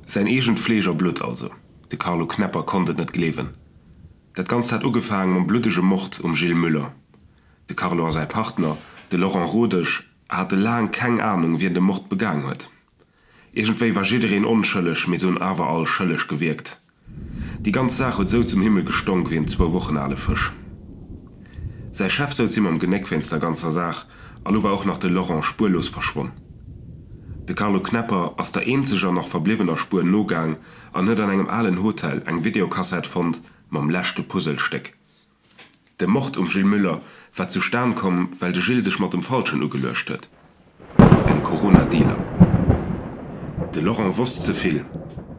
Säin eegent Fleesch a Blutt also. De Carlo Knepper konnt et net gleewen. Dat Ganzt hat ugefaang mam bluddege Mord um Gilles Müller. De Carlo a säi Partner, de Laurent Rodesch, hate laang keng Anung, wien de Mord begaang huet. Iergendwéi war jiddereen onschëlleg, mee se hunn awer all schëlleg gewierkt. Déi ganz Saach huet esou zum Himmel gestonk wéi en zwou Wochen ale Fësch. Säi Chef souz him am Genéck wéinst der ganzer Saach, a lo war och nach de Laurent spuerlos verschwonn. De Carlo Knepper ass der eenzeger nach verbliwwener Spuer nogaang an huet an engem alen Hotel eng Videokassett fonnt mam leschte Puzzelstéck. De Mord um Gilles Müller war zustan komm, well de Gilles sech mat dem Falschen ugeluecht huet, engem Corona-Dealer. De Laurent wosst ze vill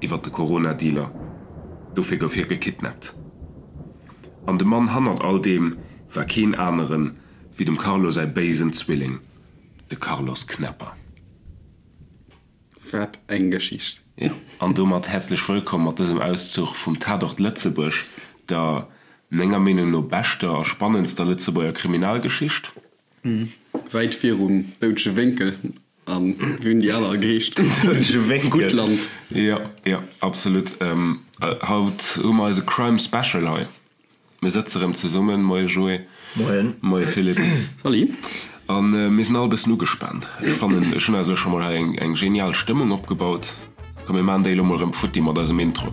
iwwer de Corona-Dealer, dofir gouf hie gekidnappt. An de Mann hannert all deem war keen aneren wéi dem Carlo säi béisen Zwilling, de Carlos Knepper. Wat eng Geschicht! Jo, an domat häerzlech wëllkomm mat dësem Auszuch vum Tatort Lëtzebuerg, der menger Meenung no beschter a spannendster Lëtzebuerger Kriminalgeschicht. Wäit virum Doudege Wénkel an wéi hunn déi aner geheescht? Doudege Wénkel. Guttland. Jo, jo, absolut. Haut hu mer eise Crime Special hei. Mir sëtze rëm zesummen. Moie Joé. Moien. Moie Philippe. Salut. A mir sinn all e bëssen ugespaant. Ech fannen, ech hunn eis elo scho mol hei eng, eng genial Stëmmung opgebaut. Komm, mir maachen déi elo mol rëm futti mat eisem Intro.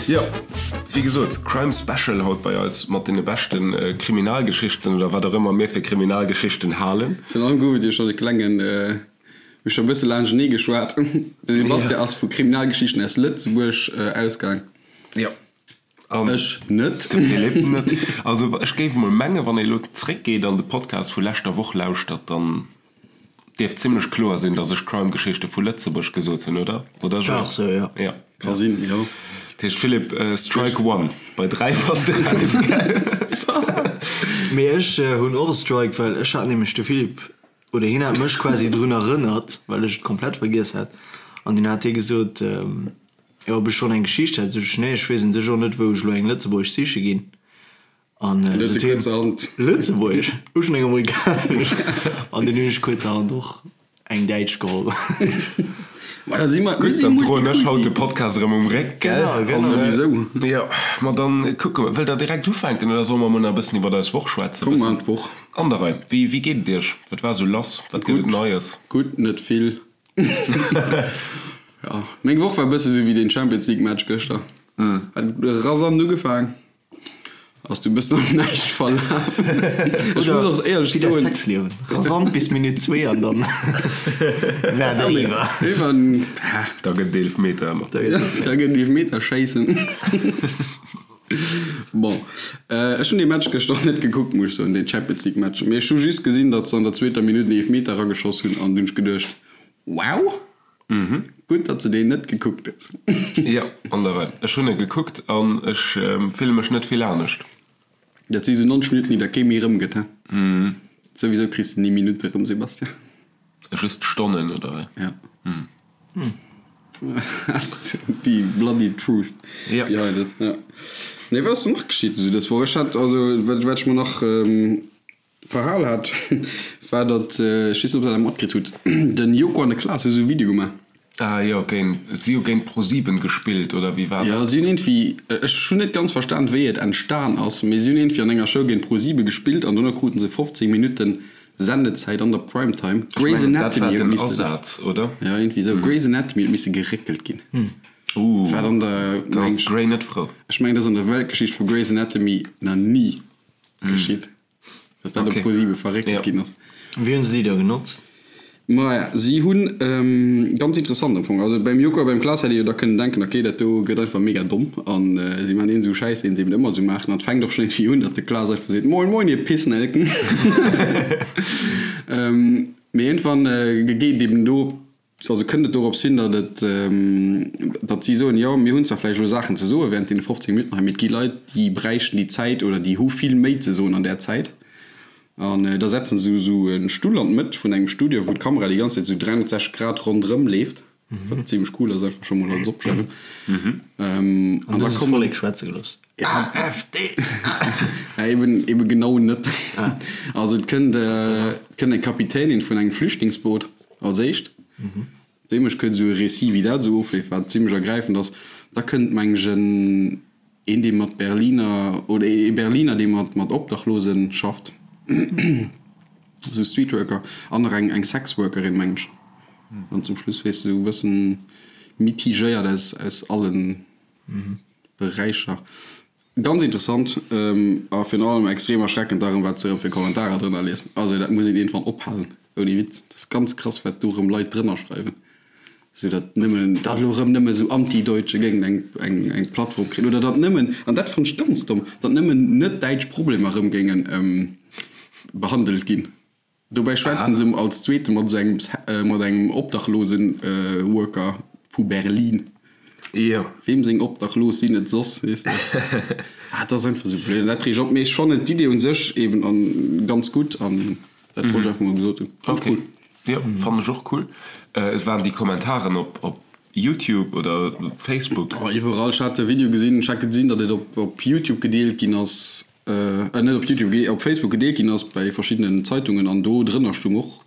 Jo. Wéi gesot, Crime Special haut bei eis mat deene beschte Kriminalgeschichten oder wat och ëmmer mir fir Kriminalgeschichten halen. Virun allem gouf et jo schonn e klengen, mir hu scho e bësse laanschtenee geschwat, de Sebastian ass vu Kriminalgeschichten aus Lëtzebuerg ausgaang. Jo. An ech net. De Philippe net. Also ech géif emol mengen, wann ee elo zréckgeet an de Podcast vu leschter Woch lauschtert, dann Dierft zimlech kloer sinn, dass ech Crime-Geschichte vu Lëtzebuerg gesot hunn, oder? Oder Joé? War sou, jo. Ja. Ka sinn, jo. Dat heescht, Philippe, Strike one. Bei 3 bass de raus, gell? Mee ech hunn och e Strike, well ech hat nämlech de Philippe, oder hien hat mech quasi drun erënnert, well ech et komplett vergiess hat, an dunn hat hie gesot, jo, ob ech schonn eng Geschicht hätt. Sot ech, nee, ech weess un sech och net, wou ech elo eng lëtzebuergesch siche ginn. An huet e kuerzerhand. Lëtzebuergesch, hu schon eng amerikanesch an dunn hunn ech kuerzerhand och eng däitsch geholl. Ma da si mer, Gutt, dann droen ech haut de Podcast erëm um Réck, gell? Genau, genau. Souwisou. Jo, ma dann kucke mer. Wëllt der direkt ufänken oder solle mer emol nach e bëssen iwwer eis Woch schwätzen? Komm, mer an d'Woch. An der Rei. Wéi, wéi geet et iech? Wat war esou lass? Wat gëtt et Neies? Gutt, net vill. Jo, meng Woch war e bësse sou wéi deen Champions League Match gëschter. Hat rasant ugefaang. Ass du bëssen am Näischt verlaf. Ech muss och éierlech Wéi däi soen. Sexliewen, rasant bis Minutt zwee an dann war et eriwwer. Iwwer, Da gëtt et Eelefmeter ëmmer. Da gëtt et da gëtt et Eelefmeter schéissen. Bon, ech hunn dee Match gëschter och net gekuckt, muss ech soen, deen Champions League Match. Mee ech hu just gesinn, datt se an der zweeter Minutt en Eelefmeter erageschoss hunn an dunn hunn ech geduecht, Wow! Gutt, datt s de deen net gekuckt hues. Jo, an der Rei. Ech hunn e gekuckt an ech fille mech net vill anescht. Dat si sou 90 Minutten, déi der kee méi erëmgëtt, he? Souwisou kriss de ni Minutte erëm, Sebastian. Just Stonnen, oder wéi? Ja. That's the bloody truth behind it, ja. Nee, wat ass denn nach geschitt esou dës Woch? Ech hat, also, wat ech mer nach. Verhal hat, war datt, ech weess net ob der dat matkritt hutt, den Joko an de Klaas hu sou e Video gemaach. Ah jo, géint, si hu géint ProSieben gespillt, oder wéi war Jo, dat? si hunn iergendwéi, ech hunn net ganz verstan wéi et entstan ass, mee si hunn iergendwéi an enger Show géint ProSiebe gespillt an dono kruten se 15 Minutten Sendezäit an der Primetime. Ech Grey's mengen, dat war Anatomy huet den missen, Asaz, oder? jo iergendwéi sou, Grey's Anatomy huet misse geréckelt ginn. Ooh, Wat an der, da meng ass ech, d'Grey net frou. ech mengen dat ass an der Weltgeschicht vu Grey's Anatomy nach ni geschitt. Datt dat op Okay. ProSiebe verréckelt Ja. ginn ass. Wéi hunn se déi da genotzt? Maja, si hunn, ganz interessant am Fong, also beim Joko a beim Klaas hätt ee jo da kënnen denken, okay, dat do gëtt einfach mega domm an si maachen een esou Schäiss, deen se eben ëmmer esou maachen. An et fänkt och schonn iergendwéi un, datt de Klaas einfach seet, Moin, moin, ihr Pissnelken. Mee iergendwann geet eben do Also kënnt et dorops hin, datt et, datt si soen, jo mir hunn zwar vläicht elo Saachen ze soe während deene 15 Minutten hei, mee et gi Leit, déi bräichten déi Zäit oder déi hu vill méi ze soen an där Zäit. An da setzen se esou e Stull an d'Mëtt vun engem Studio, wou d'Kamera déi ganz Zäit esou 360 Grad ronderëm leeft. Wat zimmlech cool ass, einfach scho mol als Opstellung. An da kommen. D'Vollek schwätze gelooss. AfD! Ja, eben, eben genau net. Also et kënnt, et kënnt eng Kapitänin vun engem Flüchtlingsboot als éischt. Déi mécht kuerz esou e Récit, wéi dat esou ofleeft, wat zimmlech ergräifend ass. Da kënnt, meng ech, en, een, dee mat Berliner, oder ee Berliner, dee mat, mat Obdachlosen schafft, esou Streetworker, an nach eng, eng Sexworkerin, meng ech. An zum Schluss, weess de, esou e bëssen mitigéiert aus, aus allen Beräicher. Ganz interessant a virun allem extrem erschreckend da rëm wat se rëm fir Kommentarer drënner liesen. Also dat muss een iergendwann ophalen, ouni Witz. Dat ass ganz krass wat do rëm Leit drënner schreiwen, sou datt nëmmen, datt elo rëm nëmme sou Anti-Deutsche géingen eng eng eng Plattform kréien oder datt nëmmen, an dat fannt ech ganz domm, datt nëmmen net-däitsch Problemer rëm géingen behandelt ginn. Dobäi schwätzen se als zweete mat esou engem mat engem obdachlosen Worker vu Berlin. Jo. Weem seng Obdachlos sinn et soss, weess de? Ah, dat ass einfach esou blöd an dat reegt op. Mee ech fannen d'Idee un sech eben an ganz gutt an dat wollt ech einfach mol gesot hunn. Fand ech cool. Jo, fannen ech och cool. Et waren déi Kommentaren op op YouTube oder Facebook? Oh, iwwerall. Ech hat e Video gesinn, ech hat gesinn, datt et op op YouTube gedeelt ginn ass. Net op Youtube, op Facebook gedeelt ginn ass bei verschiddenen Zeitungen an do drënner stung och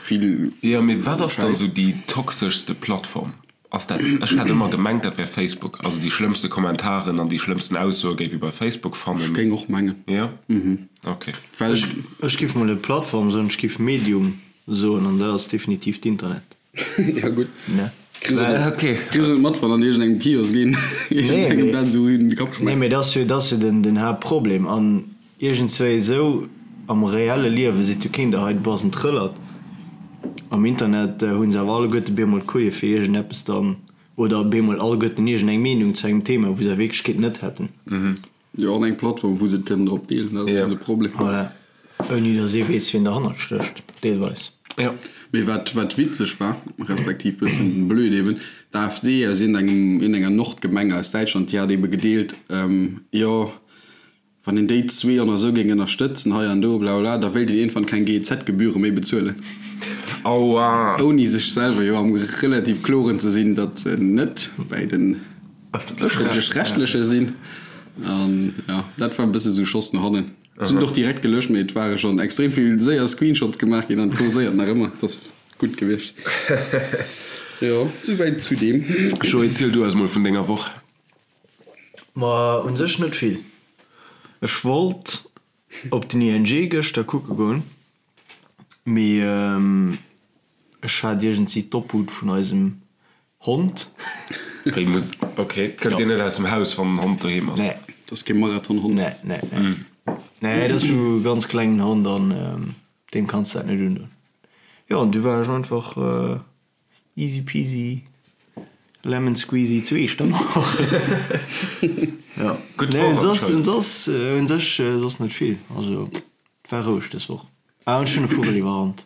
vill Jo, mee wat ass dann esou déi toxeschste Plattform? Ass dat, ech hat ëmmer gemengt dat wär Facebook, also déi schlëmmste Kommentaren an déi schlëmmsten Aussoe géif ee bei Facebook fannen. Ech géing och mengen. Jo? Ok. Well. Ech giff mol net Plattform soen, ech giff Medium soen an dat ass definitiv d'Internet. Ja gutt. Ne? Kriss et mat, wann an iergendengem Kiosk een iergendengem dat esou in de Kapp schmäisst. Nee, mee dat ass jo, dat ass jo den, den Haaptproblem. An iergendswéi esou am reelle Liewe seet jo keen der hei, du bass en Trëllert. Am Internet hu se awer alleguerte bemol d'Kujë fir iergendeppes dann, oder bemol alleguerten iergendeng Meenung zu engem Thema, wou se a Wierklechkeet net hätten. Jo, an eng Plattform, wou se et kënnen drop deelen, dat ass eben de Problem. Voilà. Ouni datt ee weess, wien derhannert stécht, deelweis. Jo. Mee wat, wat witzeg war, respektiv bëssen blöd eben, d'AfD aus iergendengem, iergendenger Nordgemeng aus Däitschland, déi hat ebe gedeelt, jo, wann een déi zwee an esou géing ënnerstëtzen hei an do, blablabla, da wéilt een iergendwann keng GEZ-Gebühre méi bezuelen. Aua! Ouni sech selwer jo am relativ kloren ze sinn, datt se net bäi den. Ëffentlech-rechtleche sinn. An jo, dat war e bësse sou Schoss no hannen. Se hunn et och direkt gelöscht, mee et ware schonn extrem vill séier Screenshots gemaach ginn an et kurséiert nach ëmmer. Dat ass gutt gewiescht. Jo, souwäit zu deem. Joé, ziel du eis mol vun denger Woch. Ma un sech net vill. Ech wollt op den ING gëschter kucke goen, mee ech hat iergendsi d'Obhut vun eisem Hond. Wéi muss, ok, kënnt dir net aus dem Haus wann den Hond doheem ass? Nee. Dat ass kee Marathonhond. Nee, nee, nee. Nee, dat ass sou e ganz klengen Hond an deem kanns de dat net undoen. Jo, an du war ech einfach easy peasy lemon squeezy zu Echternach. Jo. Gutt Nee, Woch soss, anscheinend. soss, un sech soss net vill. Also, et war roueg dës Woch. Ah, an ech hunn e Vugel iwwerrannt.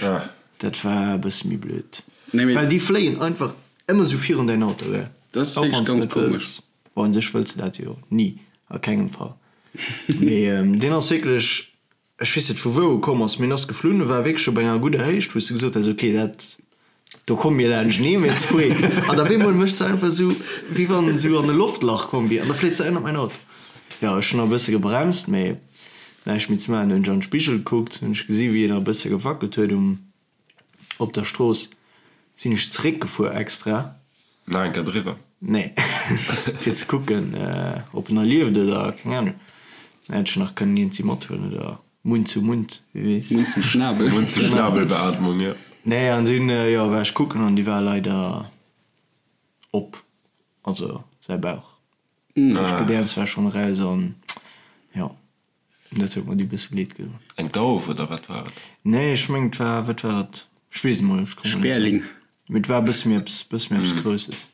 Ah. Dat war e bësse méi blöd. Nee, mee. Well déi fléien einfach ëmmer sou virun däin Auto, gell? Dat ass Auch wierklech wann s ganz net komesch. wëlls. Bon, u sech wëlls de dat jo ni, a kengem Fall. Mee deen ass wierklech, ech weess net vu wou e komm ass, mee en ass geflunn, e war wierklech op enger gudder Héicht, wou s de gesot häss, okay, dat, do komme mir laanschtenee, mir zwee. An op eemol mécht se einfach sou, wéi wann en sou an e Loftlach komm wier, an da fléit se ënnert mäin Auto. Jo, ech hunn nach e bësse gebremst, mee näischt méi ze maachen. Hunn ech an de Spigel gekuckt, hunn ech gesi wéi en nach e bësse gewackelt huet um, op der Strooss. Sinn ech zeréckgefuer extra. Nach eng Kéier driwwer? Nee, fir ze kucken, ob en nach lieft oder keng Ahnung. Dann hätt ech nach kënnen iergendsi mathuelen oder Mund zu Mund, wie weess. Mund zum Schnabel. Mund zu Schnabel-Beatmung, jo. Nee, an dunn, jo, war ech kucken an déi war leider op, also säi Bauch. D'Gedäerms war schonn eraus an, jo. Dat huet mer du bësse leed gedoen. Eng Dauf oder wat war et? Nee, ech mengen et war, wat war et? Ech weess et mol, ech kommen net drop. Sperling. Mee et war e bësse méi eppes, bësse méi eppes Grousses.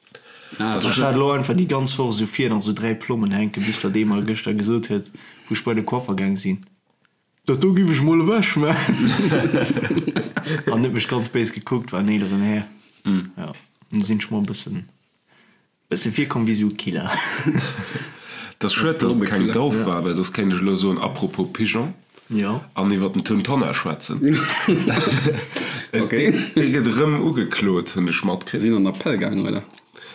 Ah, Ech hat elo einfach déi ganz Woch esou vir nach esou 3 Plommen hänken, bis datt ee mer gëschter gesot huet, wou ech bei de Coiffer gaang sinn, Dat do giff ech mol ewech maachen. An huet mech ganz béis gekuckt, war en eeleren Här. Jo, an du sinn ech mol e bëssen. Bësse virkomm wéi sou Killer. Et ass schued, dass et keng Dauf war, well soss kéint ech elo soen, apropos Pigeon, Jo. an iwwer den Tun Tonnar schwätzen. Okay. Dee gëtt erëm ugeklot, hunn ech matkritt. Sinn an Appell gaangen, oder?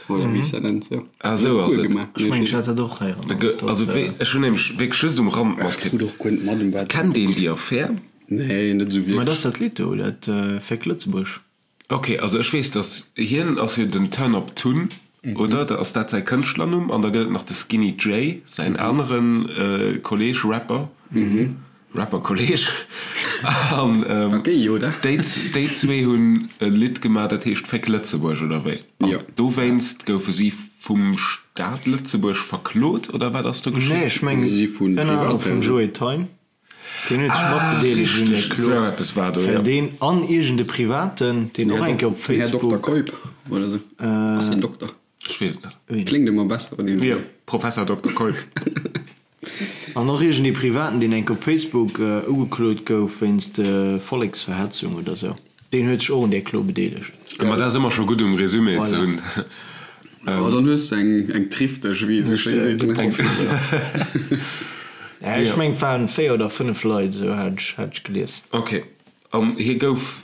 Oder wéi s dat nennt, jo. Ah, esou ass et. Ech mengen, ech hat dat och héieren. Also, ech hunn nämlech wierklech just um Rand matkritt. Ech krut och guer net mat, ëm wat. Kennt een déi Affär? Nee, net esou Mä wierklech. dat ass dat Lidd do, dat Féck Lëtzebuerg. Ok, also ech weess dass hien ass jo den Turn Up Tun, oder? Da ass dat säi Kënschtlernumm? An da gëtt et nach de Skinny Jay, säin anere Kolleeg Rapper, Rapper-Kolleeg. An déi déi zwee hunn e Lidd gemaach, dat heescht Féck Lëtzebuerg, oder wéi? An dowéinst goufe si vum Staat Lëtzebuerg verklot, oder wat ass do geschitt? Nee, ech mengen ënner anerem vum Joe Thein. Deen huet sech matbedeelegt un där Klo, well deen an iergend e Privaten, deen och eng Kéier op Facebook. Här Dokter Keup oder esou. Ass hien Dokter? Ech weess et net. Kléngt ëmmer besser, wann een esou. Jo, Professor Dokter Keup. An och iergend ee Privaten, deen eng Kéier op Facebook ugeklot gouf wéinst Volleksverhetzung oder esou. Deen huet sech och un där Klo bedeelegt. Ma dat ass ëmmer scho gutt um Resumé ze hunn. Oh, dann hues de eng, eng Trifteg, wéi ee sou schéi seet, ne? Ech mengen, et waren 4 oder 5 Leit, esou hat ech, hat ech gelies. Ok, an hie gouf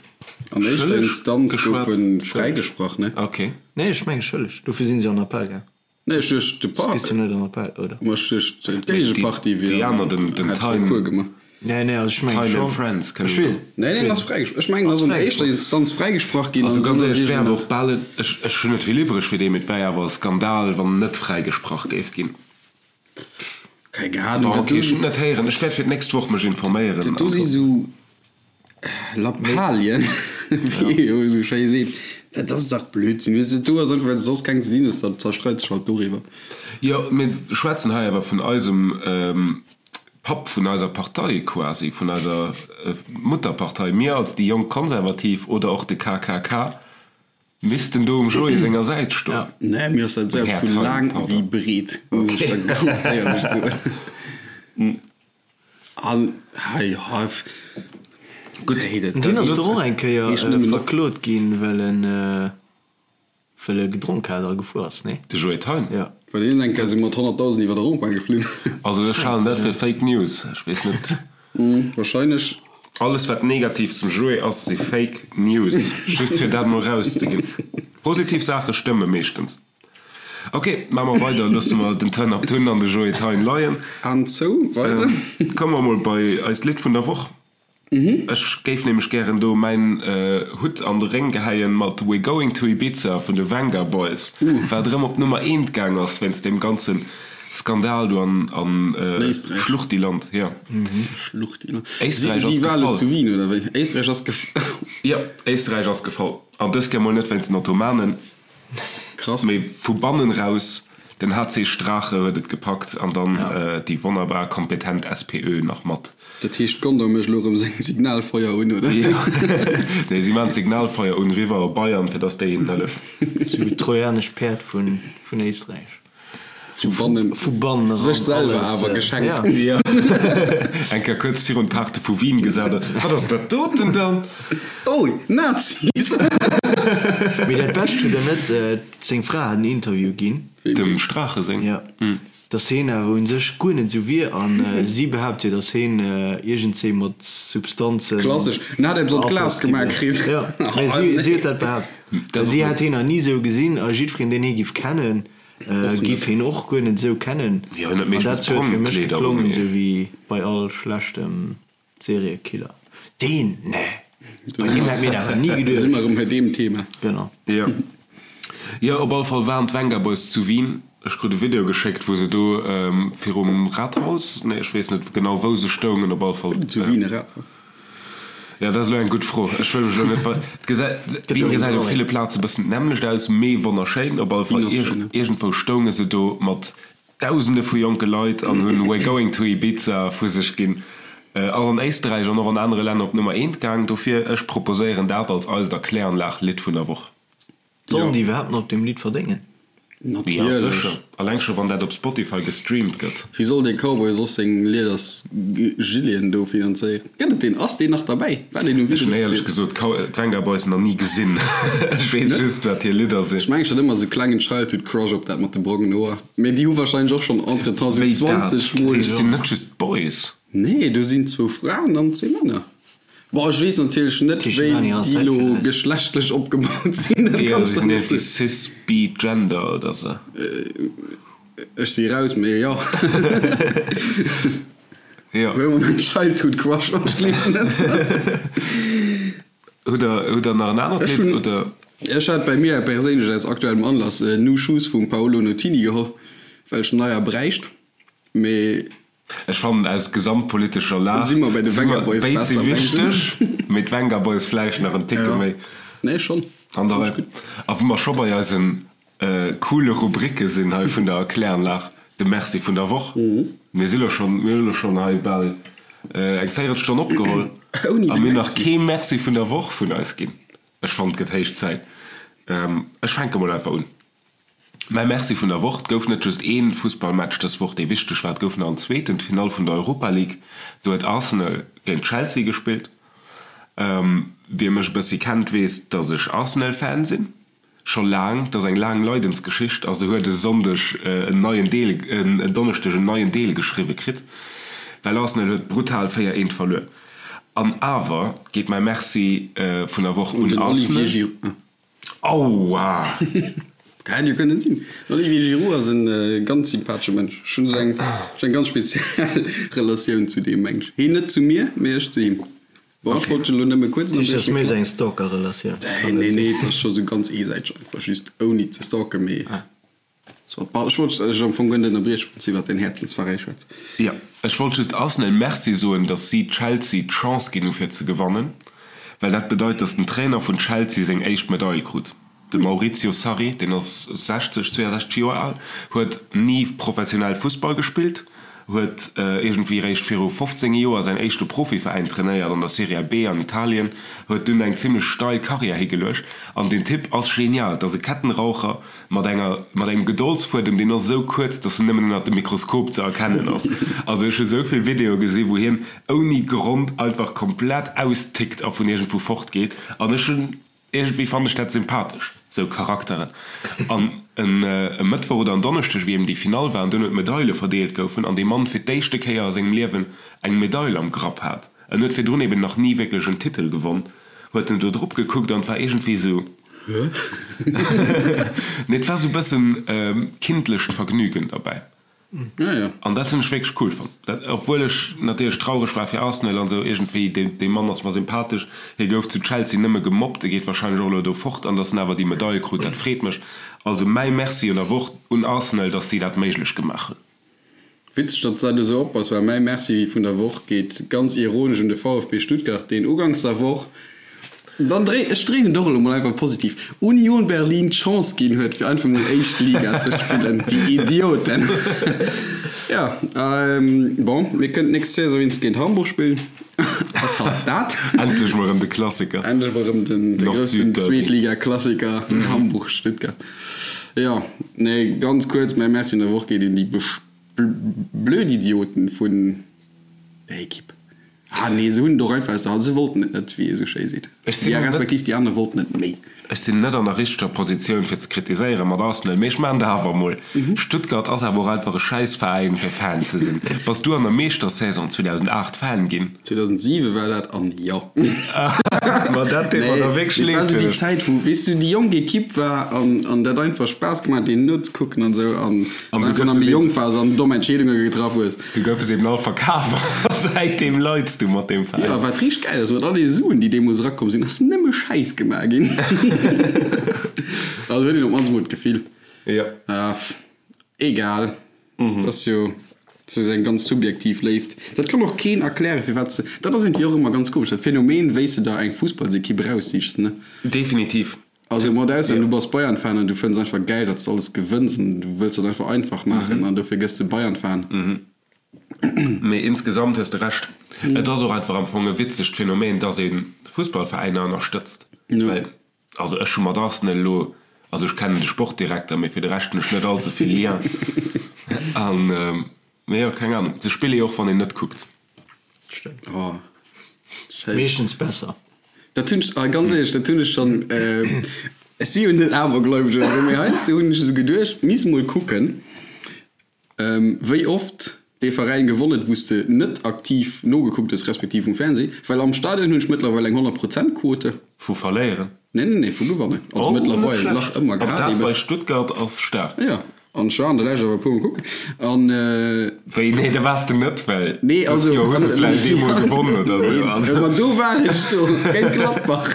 An éischter schëlleg Instanz gouf geschwat? e fräigesprach, ne? Ok. Nee, ech menge schëlleg. Dofir sinn se an Appell gaang. Nee, ech duecht de Park. Gis du net an Appell, oder? Ma ech duecht d'Géigepartie wier hätt Recours gemaach. Nee, nee, also ech mengen schon. Friends kënnen Ech weess. Nee, nee, en ass fräigesprach. Ech mengen, en ass an éischter Instanz fräigesprach ginn. Also ganz éierlech, et wär awer och bal, ech ech hunn net vill iwwreg fir dee, mee et wär awer e Skandal, wann en net fräigesprach géif ginn. Keng Ahnung. Bon, ok, ech hunn et net héieren. Ech wäert fir d'nächst Woch mech informéieren. Dat do si sou Lappalien, wéi ee jo esou schéi seet. Dat ass dach Blödsinn. Weess de, do ass einfach, well s de soss keng ze dinn hues, da zerstreit sech halt doriwwer. Jo, mir schwätzen hei awer vun eisem Papp vun eiser Partei quasi, vun eiser Mutterpartei. Mir als déi jonk Konservativ oder och de KKK missten do um Joé senger Säit stoen. Nee, mir ass dat esou Här vu Thein, laang pardon. wéi breet, muss ech da ganz éierlech soen. An hei, jo, Gutt, nee, dat, Deen dat ass doch och eng Kéier heescht nëmmen op. verklot ginn, well en, well e gedronk hat a gefuer ass, nee? De Joé Thein? Jo. Well deen eng Kéier esou mat 100.000 iwwer de Rond-point geflunn. Also ech halen dat fir Fake News. Ech weess net. Wahrscheinlech. Alles wat negativ zum Joé ass, si Fake News. Just fir dat mol rauszeginn. Positiv Saache stëmme meeschtens. Ok, maache mer weider. Loosse mer den Turn Up Tun an de Joé Thein leien. An zou, weider. Komme mer mol bei eist Lidd vun der Woch. Ech géif nämlech gären do mäin Hutt an de Réng gehäien mat We're Going to Ibiza vun de Vengaboys, wat erëm op d'Nummer eent gaang ass wéinst deem ganze Skandal do an Schluchtiland. Jo. Schluchtiland. Éisträich ass Si war elo gefall. zu Wien, oder wéi? Éisträich ass gefall. Jo, Éisträich ass gefall. An dës Kéier mol net wéinst den Ottomanen. Krass. Mee vu bannen raus, den HC Strache huet et gepackt an dann déi wonnerbar kompetent SPÖ nach mat. Dat heescht Gondor mécht elo erëm seng Signalfeuer un, oder? Jo, nee si maachen d'Signalfeuer un riwwer op Bayern fir dass déi hinnen hëllefen. Sou wéi d'trojanescht Päerd vun Éisträich. Vu bannen, vu bannen eran sech selwer alles, awer geschenkt. Ja. Jo, eng Kéier kuerz virun d'Paarte vu Wien gesat huet, Wat ass dat doten dann? Oh, Nazis! Mee dat Bescht hutt der net, seng Fra hat en Interview ginn. Dem Strache seng? Ja, dass heen awer un sech guer net esou wier an si behaapt jo, dass heen iergendzéi mat Substanzen. Klassesch, en hat eppes an d'Glas beaflosst gi gemaach wier. kritt. Jo, mee si, si huet dat behaapt. Dat Si hätt heen nach ni esou gesinn a jiddwereen, deen hee giff kennen, Giff heen och guer net esou kennen. Jo, hien huet An meeschtens dat huet fir mech Prongkleeder un, geklongen mee. esou wéi bei all schlechtem Seriekiller. Deen, nee, bei deem hätt mir dat awer ni Do si geduecht. mer erëm bei deem Thema. Genau. Jo. Jo, op alle Fall waren d'Vengaboys zu Wien. Ech krut e Video geschéckt, wou se do virum Rathaus, nee, ech weess net genau wou se stoungen, op alle Fall. Zu Wien e Rathaus? Jo, dat ass elo eng gutt Fro. Ech wëll mech elo net ver. Et gesäit, Wien gesäit op ville Plaze bëssen d'nämmlecht aus, mee wonnerschéin. Op alle Fall iergendwou stounge se do mat Dausende vu jonke Leit an hunn We're going to Ibiza vu sech ginn. Ass an Éisterräich an och an anere Länner op Nummer eent gaang. Dofir, ech proposéieren dat als eist Erkläranlag-Lidd vun der Woch. Sollen déi iwwerhaapt nach op deem Lidd verdéngen? Ja, Natierlech. sécher. Alleng scho wann dat op Spotify gestreamt gëtt. Wéi soll dee Cowboy soss seng Lieders Gileten do finanzéieren? Gëtt et deen? Ass deen nach derbäi? War deen um Ech hunn Video? éierlech gesot d'Venga Boys nach ni gesinn. Ech weess just wat hir Lidder Ech sinn. mengen ech hat ëmmer sou klengen Childhood Crush op dat mat de brongen Hoer. Mee déi hu wahrscheinlech och schonn entretemps sou Wéi dat? 20 Dat mol. heescht, et sinn net just Boys? Nee, do sinn zwou Fraen an zwee Männer. Bon, ech weess natierlech net, wéi déi elo geschlechtlech opgebaut sinn. Dat kann ech der net soen. Cis, bi, gender oder sou. Ech si raus, mee jo. Jo. Wéi mer Childhood Crush, wann ech gleewen net. Hutt der, hutt der nach en anert Lidd, oder? Ech hat bei mir perséinlech aus aktuellem Anlass New Shoes vum Paolo Nutini geholl, well ech neier bräicht, mee. Ech fannen aus gesamtpolitescher Lag Si mer bei de si mer Vengaboys béid si besser, denken wichteg, ech. mee d'Vengaboys vläicht nach en Ticke Ja, méi nee schonn, an der fand ech Rei. gutt. A wou mer scho bei eisen coole Rubricke sinn hei vun der Erkläranlag, de Merci vun der Woch. Mir si lo schonn, mir hu lo schonn hei bal eng Véierelstonn opgeholl Ouni a de mir hunn nach Merci. kee Merci vun der Woch vun eis ginn. Ech fannen, et gëtt héich Zäit. Ech fänke mol einfach un. Mäi Merci vun der Woch, Et gouf net just ee Fussballmatch dës Woch, dee wichteg war, et gouf nach en zweeten, d'Finall vun der Europa League. Do huet Arsenal géint Chelsea gespillt. Wie mech e bëssi kennt, weess, datt ech Arsenal-Fan sinn, scho laang. Et ass eng laang Leidensgeschicht a se huet e Sonndeg en neien Deel, en Donneschdeg en neien Deel geschriwwe kritt, well Arsenal huet brutal 4, 1 verluer. An awer geet mäi Merci vun der Woch Un un den Olivier Arsenal. Giroud. Aua! Hätt jo kënnen sinn. Den Olivier Giroud ass en ganz sympathesche Mënsch. Ech hunn esou eng, ech hunn eng ganz speziell Relatioun zu deem Mensch. Heen net zu mir, mee ech zu him. Bon, ech wollt dech elo nëmme kuerz Dat ass ënnerbriechen. méi esou eng Stalker-Relatioun. Nee, nee, nee, et ass scho sou ganz eesäiteg einfach, just ouni ze stalken, mee. Ech wollt dech am Fong guer net ënnerbriechen, wann s de iwwer däin Häerzensveräi schwätz. Jo, ech wollt just Arsenal Merci soen, datt si Chelsea d'Chance ginn hu fir ze gewannen, well dat bedeit, datt den Trainer vun Chelsea seng éischt Medail krut. De Maurizio Sarri, deen ass 60, 62 Joer al, huet ni professionell Fussball gespillt, huet iergendwéi réischt viru 15 Joer säin éischte Profiveräin trainéiert an der Serie B an Italien, huet dunn eng zimmlech steil Karriär higeluecht an deen Typ ass genial, et ass e Kettenraucher, Mat enger, mat engem Gedoldsfuedem, deen ass esou kuerz, dass en nëmmen ënnert dem Mikroskop ze erkennen ass. Also ech hu sou vill Videoe gesi wou hien ouni Grond einfach komplett austickt a vun iergendwou fort geet. An ech hunn, iergendwéi fannen ech dat sympathesch, sou Charakteren. An en e Mëttwoch oder en Donneschdeg, wéi eben déi Finall war an duerno d'Medaile verdeelt goufen an dee Mann fir d'éischte Kéier a sengem Liewen eng Medail am Grapp hat, en huet virdrun eben nach ni wierklech en Titel gewonn, huet en do drop gekuckt an et war iergendwéi sou, Nee, et war sou bëssen kindlecht Vergnügen derbäi. An dat hunn ech wierklech cool fonnt. Dat, obwuel ech natierlech traureg war fir Arsenal an sou, iergendwéi, dee, dee Mann ass mer sympathesch. Hie gouf zu Chelsea nëmme gemobbt, e geet warscheinlech och elo do fort. An datt en awer déi Medail krut, dat freet mech. Also mäi Merci un der Woch un Arsenal, datt si dat méiglech gemaach hunn. Witzeg, datt s dat esou opbass, well mäi Merci vun der Woch geet ganz ironesch un de VfB Stuttgart, deen uganks der Woch, dann dréi, ech dréinen et och elo mol einfach positiv, Union Berlin d'Chance ginn huet, fir einfach mol éischt Liga ze spillen. Déi Idioten! Jo, bon, mir kënnen d'nächst Saison wéinst géint Hamburg spillen. Ass halt dat. Endlech mol erëm de Klassiker. Endlech mol erëm den groussen Zweetliga-Klassiker Hamburg-Stuttgart. Jo, nee, ganz kuerz, mäi Merci an der Woch geet un déi blöd Idioten vun der Ekipp. Ah nee, se hunn et och einfach aus der Hand, se wollten et net, wéi ee sou schéi seet. Ech sinn Ja, net. respektiv déi aner wollten et méi. Ech sinn net an der richteger Positioun fir ze kritiséieren mat Arsenal, mee ech maachen dat awer emol. Stuttgart ass awer och einfach e schäiss Veräin fir Fan ze sinn. Bass du an der Meeschtersaison 2008 Fan ginn? 2007 war dat an jo. Ma dat deet mer da wierklech Nee, leed et war sou fir déi dech. Zäit wou, weess du, déi jonk Ekipp war an an dat einfach Spaass gemaach huet deenen nozekucken an esou an An du du einfach goufe nach méi se jonk waars an domm Entscheedunge getraff hues. Du goufe se eben all verkaf a säitdeem leids du mat deem Veräin. Jo, wat richteg gäil ass, mat all deene Suen déi deemools erakomm sinn, ass nëmme Schäiss gemaach ginn. Also huet een op d'mannst mol d'Gefill. Jo. Egal. Dat ass jo dat ass eng ganz subjektiv Léift. Dat kann och keen erklären, firwat se. Dat ass iergendwéi och ëmmer ganz komesch, dat Phänomen, wéi s de der eng Fussballsekipp eraussichs, ne? Definitiv. Also mat Ausnam, du bass Bayern-Fan an du fënns einfach gäil, datt s de alles gewënns an du wëlls dat einfach einfach maachen an dofir gëss de Bayern-Fan. Mee insgesamt hues de Recht. Et ass och einfach am Fong e witzegt Phänomen, datt ee Fussballveräiner ënnerstëtzt. Well Also ech hu mat Arsenal elo, also ech kennen de Sportdirekter, mee fir de Rescht hunn ech net all ze vill Lien. An, mee jo, keng Ahnung, se spille jo och wann een net kuckt. Stëmmt. Oh, schéin. Meeschtens besser. Dat hunn ech, ah, ganz éierlech, dat hunn ech schonn, ech si jo net awergläubeg oder esou, mee heiansdo hunn ech esou geduecht, misst mol kucken, wéi oft. Dee Veräin gewonn huet, wou s de net aktiv nogekuckt hues, respektiv um Fernseh, well am Stadion hunn ech mëttlerweil eng 100 Prozent Quote. Vu verléieren? Nee, nee, nee, vu gewannen. Also Oh, net mëttlerweil, schlecht. nach ëmmer An gehat dat eben. bei Stuttgart ass staark. Jo, an ech war an der Lescht awer e puermol kucken an. Wéi, nee, da waars de net, well Nee, dëst also. Joer hu se vläicht eemol gewonnen oder sou. Nee, Also. ma do war ech do, géint Gladbach.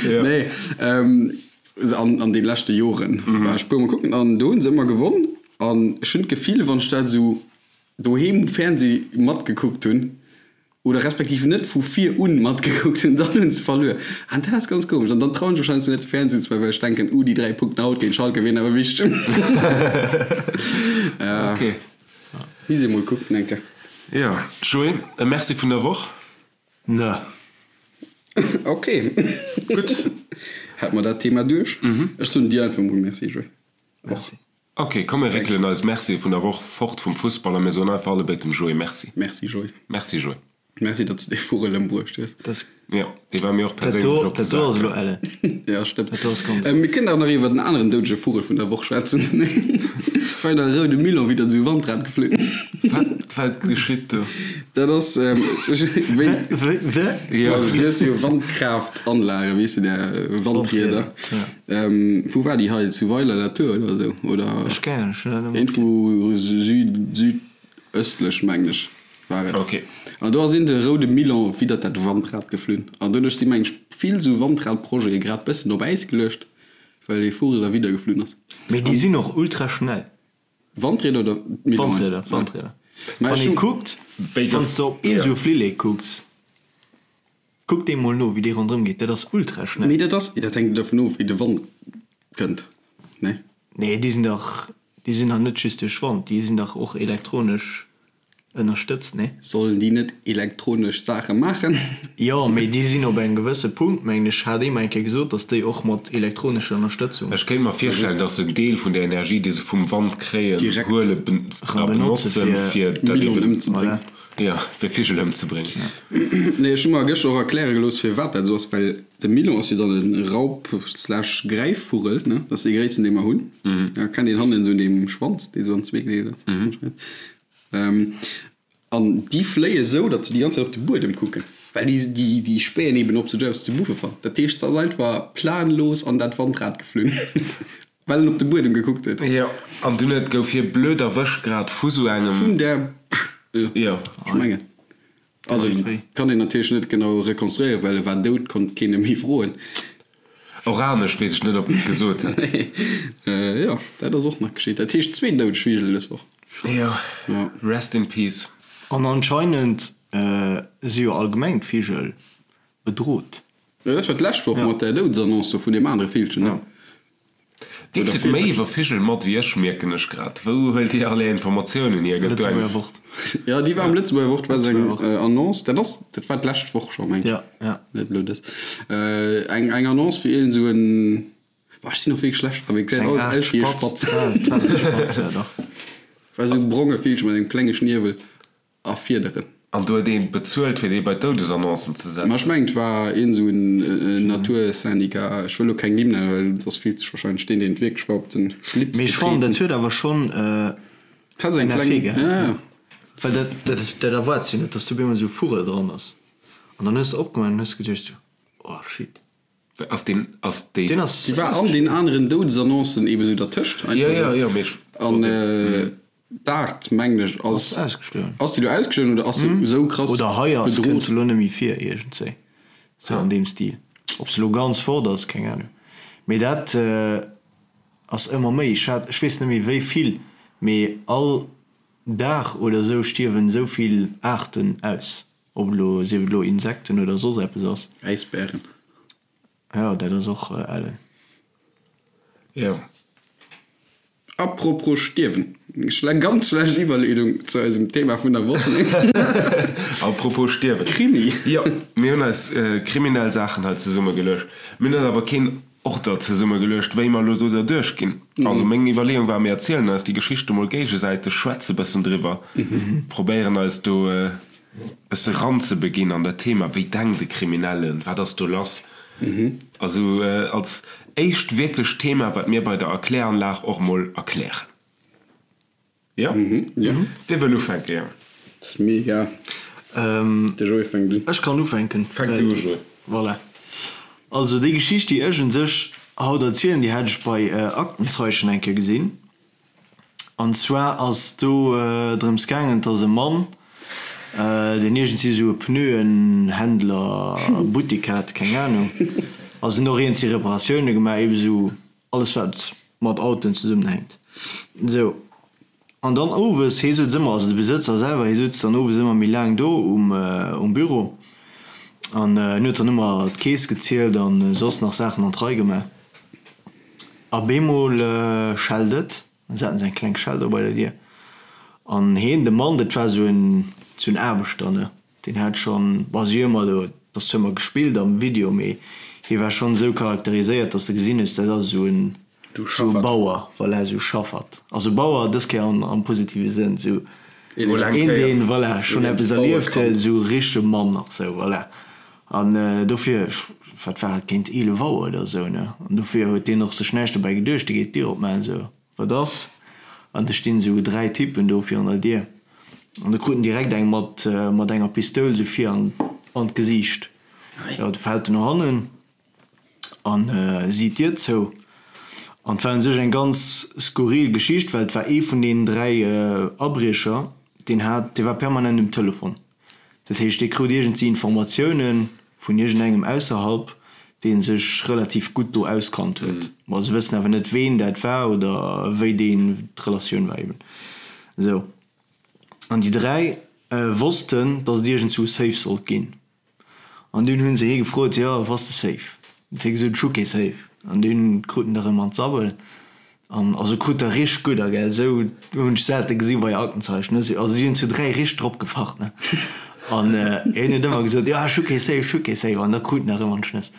Jo. Nee, an, an de leschte Joren war ech e puermol kucken an do hu se ëmmer gewonn. An ech hunn d'Gefill, wann ech dat esou doheem um Fernseh matgekuckt hunn, oder respektiv net vu vir un matgekuckt hunn, dann hunn se verluer. An dat ass ganz komesch. An dann trauen ech mech heiansdo net de Fernseh unzemaachen, well ech denken, uh, déi 3 Punkten haut géint Schalke wieren awer wichteg. Ok. Misst ee mol kucken eng Kéier. Jo, Joé, e Merci vun der Woch. Ne. Ok. Gutt. Hätt mer dat Thema duerch. Ech soen dir einfach mol Merci, Joé. Merci. Ok, komm mir réckelen eis Mercië vun der Woch fort vum Fussball a mir soen einfach allebéid dem Joé Merci. Merci Joé. Merci Joé. Merci datt s de dee Vugel ëmbruecht hues. Das, Jo, dee war mir och dat perséinlech do, op de dat do Sak ass elo gaangen. ellen. Ja, stëmmt. Dat do ass ganz. Mir kënnen awer nach iwwer den aneren doudege Vugel vun der Woch schwätzen. War der roude Milan widder esou Wandrad geflunn. Wat, wat geschitt do? Dat ass, wéi. Wéi, wéi? Jo. Also, du hues jo Wandkraaft-Anlagen, weess de, där Wandrieder. Ja. Wou war déi hei? Zu Weiler-la-Tour oder esou? Oder Ech keng Ahnung, ech hunn dat net iergendwou süd, südöstlech, mengen ech, war et. Ok. An do ass een de roude Milan widdert dat Wandrad geflunn. An doduerch si mengen ech vill esou Wandradprojete grad bëssen op Äis geluecht, well dee Vugel da widder geflunn ass. Mee déi sinn och ultra schnell. Wandrieder oder Milonen? Wandrieder, Wandrieder. Mä Wann ech ee hunn. kuckt, Wéi wann gouf. s de op ee Jo. esou Flillek kucks. Kuck dee mol no wéi dee ronderëm geet, dat ass ultra schnell. Nee dat ass, dat hänkt dervun of wéi de Wand kënnt, nee? Nee déi sinn dach, déi sinn dach net just duerch Wand, déi sinn dach och elektronesch ënnerstëtzt, nee? Sollen déi net elektronesch Saache maachen? Jo, mee déi sinn op engem gewësse Punkt, mengen ech, hat ee mer eng Kéier gesot, datt déi och mat elektronescher Ënnerstëtzung. Ech kéint mer virstellen, datt se en Deel vun der Energie, déi se vum Wand kréien, Direkt huele a benotze benotzen, fir fir dat Millionen eben. ëmzebréngen. Voilà. Jo, fir Vigel ëmzebréngen. Nee, ech hu mer gëschter och erkläre gelooss, firwat dat esou ass, well de Milon ass jo dann e Raup slash Gräifvugel, ne? Dat ass dee gréissten, dee mer hunn. Ja, kennt een hannen esou un deem Schwanz, dee esou an zwee gedeelt ass anscheinend. An déi fléie esou, datt se déi ganz Zäit op de Buedem kucken, well déi, déi, déi späen eben, ob se do eppes ze buffe fannen. Dat heescht, se ass einfach planlos an dat Wandrad geflunn, well en op de Buedem gekuckt huet. Jo, an dunn huet, gouf hie blöd erwëscht grad vu sou engem. Vun der. Jo. Ech mengen. Also kann een natierlech net genau rekonstruéieren, well e war dout, konnt keen e méi froen. Och anescht weess ech net, ob en et gesot hätt. Jo, dat ass och nach geschitt. Dat heescht zwee doudeg Vigel dës Woch. Jo. Jo. Rest in peace. An anscheinend si jo allgemeng d'Vigel bedrot. Jo, dat war d'lescht Woch mat där Doudesannonce do vun deem anere Villchen, ne? Dir kritt méi iwwer Vigel mat wéi ech, mierken ech grad. Wou huelt Dir all Är Informatiounen hier? Gëtt do eng. Lëtzebuerger Wort. Jo, déi war am Lëtzebuerger Wort, war esou eng Annonce. Dat ass, dat war d'lescht Woch scho, mengen ech. Ja, ja. Net elo dës. Eng, eng Annonce fir iergend esou en, boah, ech sinn och wierklech schlecht dran, mee gesäit Eng alles Aart aus wéi e Spatz. Spatz. Ja, et war e Spatz, ja, dach. War esou e bronge Villche mat engem klenge Schniewel. A Fiederen. An do huet een bezuelt fir dee bei d'Doudesannoncen ze setzen. Ma ech mengen et war een esou en Natursyndicat, ech wëll elo keng Nimm nennen, well soss fillt sech wahrscheinlech deen deen et wierklech war op den Schlips Mee ech fannen getreten. dat huet awer schonn Et hat esou eng en kleng, Effet gehat, ja ne? ja. Well dat dat dat erwaarts jo net, dass do op eemol esou e Vugel dran ass. An dann hues de opgemaach an hues geduecht esou, oh shit. Ass deen, ass déi. Deen ass. Déi war an den aneren Doudesannoncen eben esou dertëscht Jo einfach jo esou. jo, mee ech An wollt deen. d'Aart mengen ech ass. Ass ausgestuerwen. Ass déi do ausgestuerwen oder ass se esou krass Oder hei ass, bedroht? kënnt se elo net méi vir iergendzéi. Sou an deem Stil. Ob se elo ganz fort ass, keng Ahnung. Mee dat ass ëmmer méi. Ech hat, ech weess net méi wéi vill, mee all Dag oder esou stierwen esou vill Aarten aus. Ob elo, sief et elo Insekten oder soss eppes ass. Äisbären. Jo, dat ass och ellen. Jo. Apropos stierwen, schle ganz schlecht Iwwerleedung zu eisem Thema vun der Woch. Apropos stierwen. Krimi. Jo, mir hunn eis kriminell Saachen hei zesummegeluecht. Mir hunn eis awer keen Order zesummegeluecht, wéi mer elo do derduerch ginn. Also meng Iwwerleeung war, mir erzielen eis déi Geschichte mol géigesäiteg, schwätze bëssen driwwer, probéieren eis do bësse ranzebeginn an dat Thema, wéi denkt e Kriminellen, wat ass do lass? Also als éischt wierklecht Thema, wat mir bei der Erkläranlag och mol erklären. Jo? Jo. Wie wëll ufänken, Jang? Dat ass mir egal. De Joé fänkt un. Ech kann ufänken. Fänk du u, Joé. Voilà. Also déi Geschicht, déi ech un sech haut erzielen, déi hat ech bei Aktenzeichen eng Kéier gesinn. An zwar ass do drëms gaangen, dass e Mann, deen iergendwéi esou e Pneuenhändler, Buttik hat, keng Anung, also en och iergendwéi Reparatioune gemaach, ebe sou alles wat mat Autoen zesummenhänkt. Sou, an dann owes, hee sutz ëmmer, also de Besëtzer selwer, hee sutz dann owes ëmmer méi laang do um Büro an en huet dann ëmmer d'Keess gezielt an soss nach Saachen an d'Rei gemaach. A bemol schellt et, dann haten se eng kleng Schell do bei der Dier an heen, de Mann, dat war sou en, sou en Aarbechter, ne, deen hat schonn, bon, si hu ëmmer do, et ass zwar ëmmer gespillt am Video, mee hie war schonn esou charakteriséiert, datt s de gesinn hues, dat ass esou en, esou e Bauer, voilà, esou e Schaffert. Also Bauer dës Kéier am, am positive Sënn, esou een, deen, voilà, schonn eppes erlieft huet, esou e richtege Mann nach esou, voilà. An dofir, ech, wat war et, géint 11 Auer oder esou, ne? An dofir huet deen och sech näischt dobäi geduecht, dee geet d'Dier opmaachen, esou, Wat ass? An da stinn esou 3 Typen do virun der Dier. An da krut en direkt eng mat, mat enger Pistoul esou vir an, an d'Gesiicht. Jo, du fält en no hannen an si d'Dier zou. An et war un sech eng ganz skurril Geschicht, well et war ee vun deenen 3 Abriecher, deen hat, dee war permanent um Telefon. Dat heescht, dee krut iergendwéi Informatioune vun iergendengem ausserhalb, dee sech relativ gutt do auskannt huet. Ma se wëssen awer net, ween dat war oder wéi deen d'Relatioun war eben. Esou. An déi 3 wossten, datt et iergendzwou Safe sollt ginn. An dunn hunn se hie gefrot, jo, wou ass de Safe? Huet hie gesot, ech hu kee Safe. An dunn krut en der erëm an d'Sabbel. An also krut der richteg gudder, gell. Esou hunn ech selte gesi bei Aktenzeichen, ne. Also si hunn zu 3 richteg drop gefacht, ne. An hien huet ëmmer gesot, jo, ech hu kee Safe, ech hu kee Safe. An da krut en der erëm an d'Schnëss.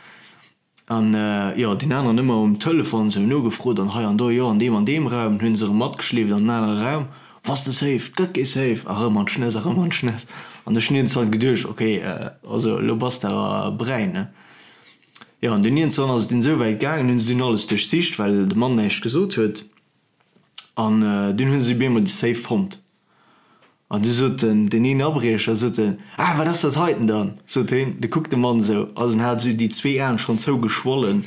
An jo, deen aneren ëmmer um Telefon sou nogefrot an hei an do, jo an deem an deem Raum, hunn se erëm matgeschleeft an en anere Raum, Wass de safe? 't gëtt kee Safe! A rëm an d'Schnëss a rëm an d'Schnëss. An ech hunn iergendzwann geduecht, ok, also elo bass de awer bräin, ne? Jo, an dunn iergendzwann ass et dunn esou wäit gaangen, hunn se dunn alles duerchsicht, well de Mann näischt gesot huet, an dunn hu se op eemol de Safe fonnt. An du sot den, deen een Abriecher, sot en, Ah, wat ass dat heiten dann? sot heen. Du kuckt de Mann esou, also en hat esou déi zwee Aen schonn zougeschwollen,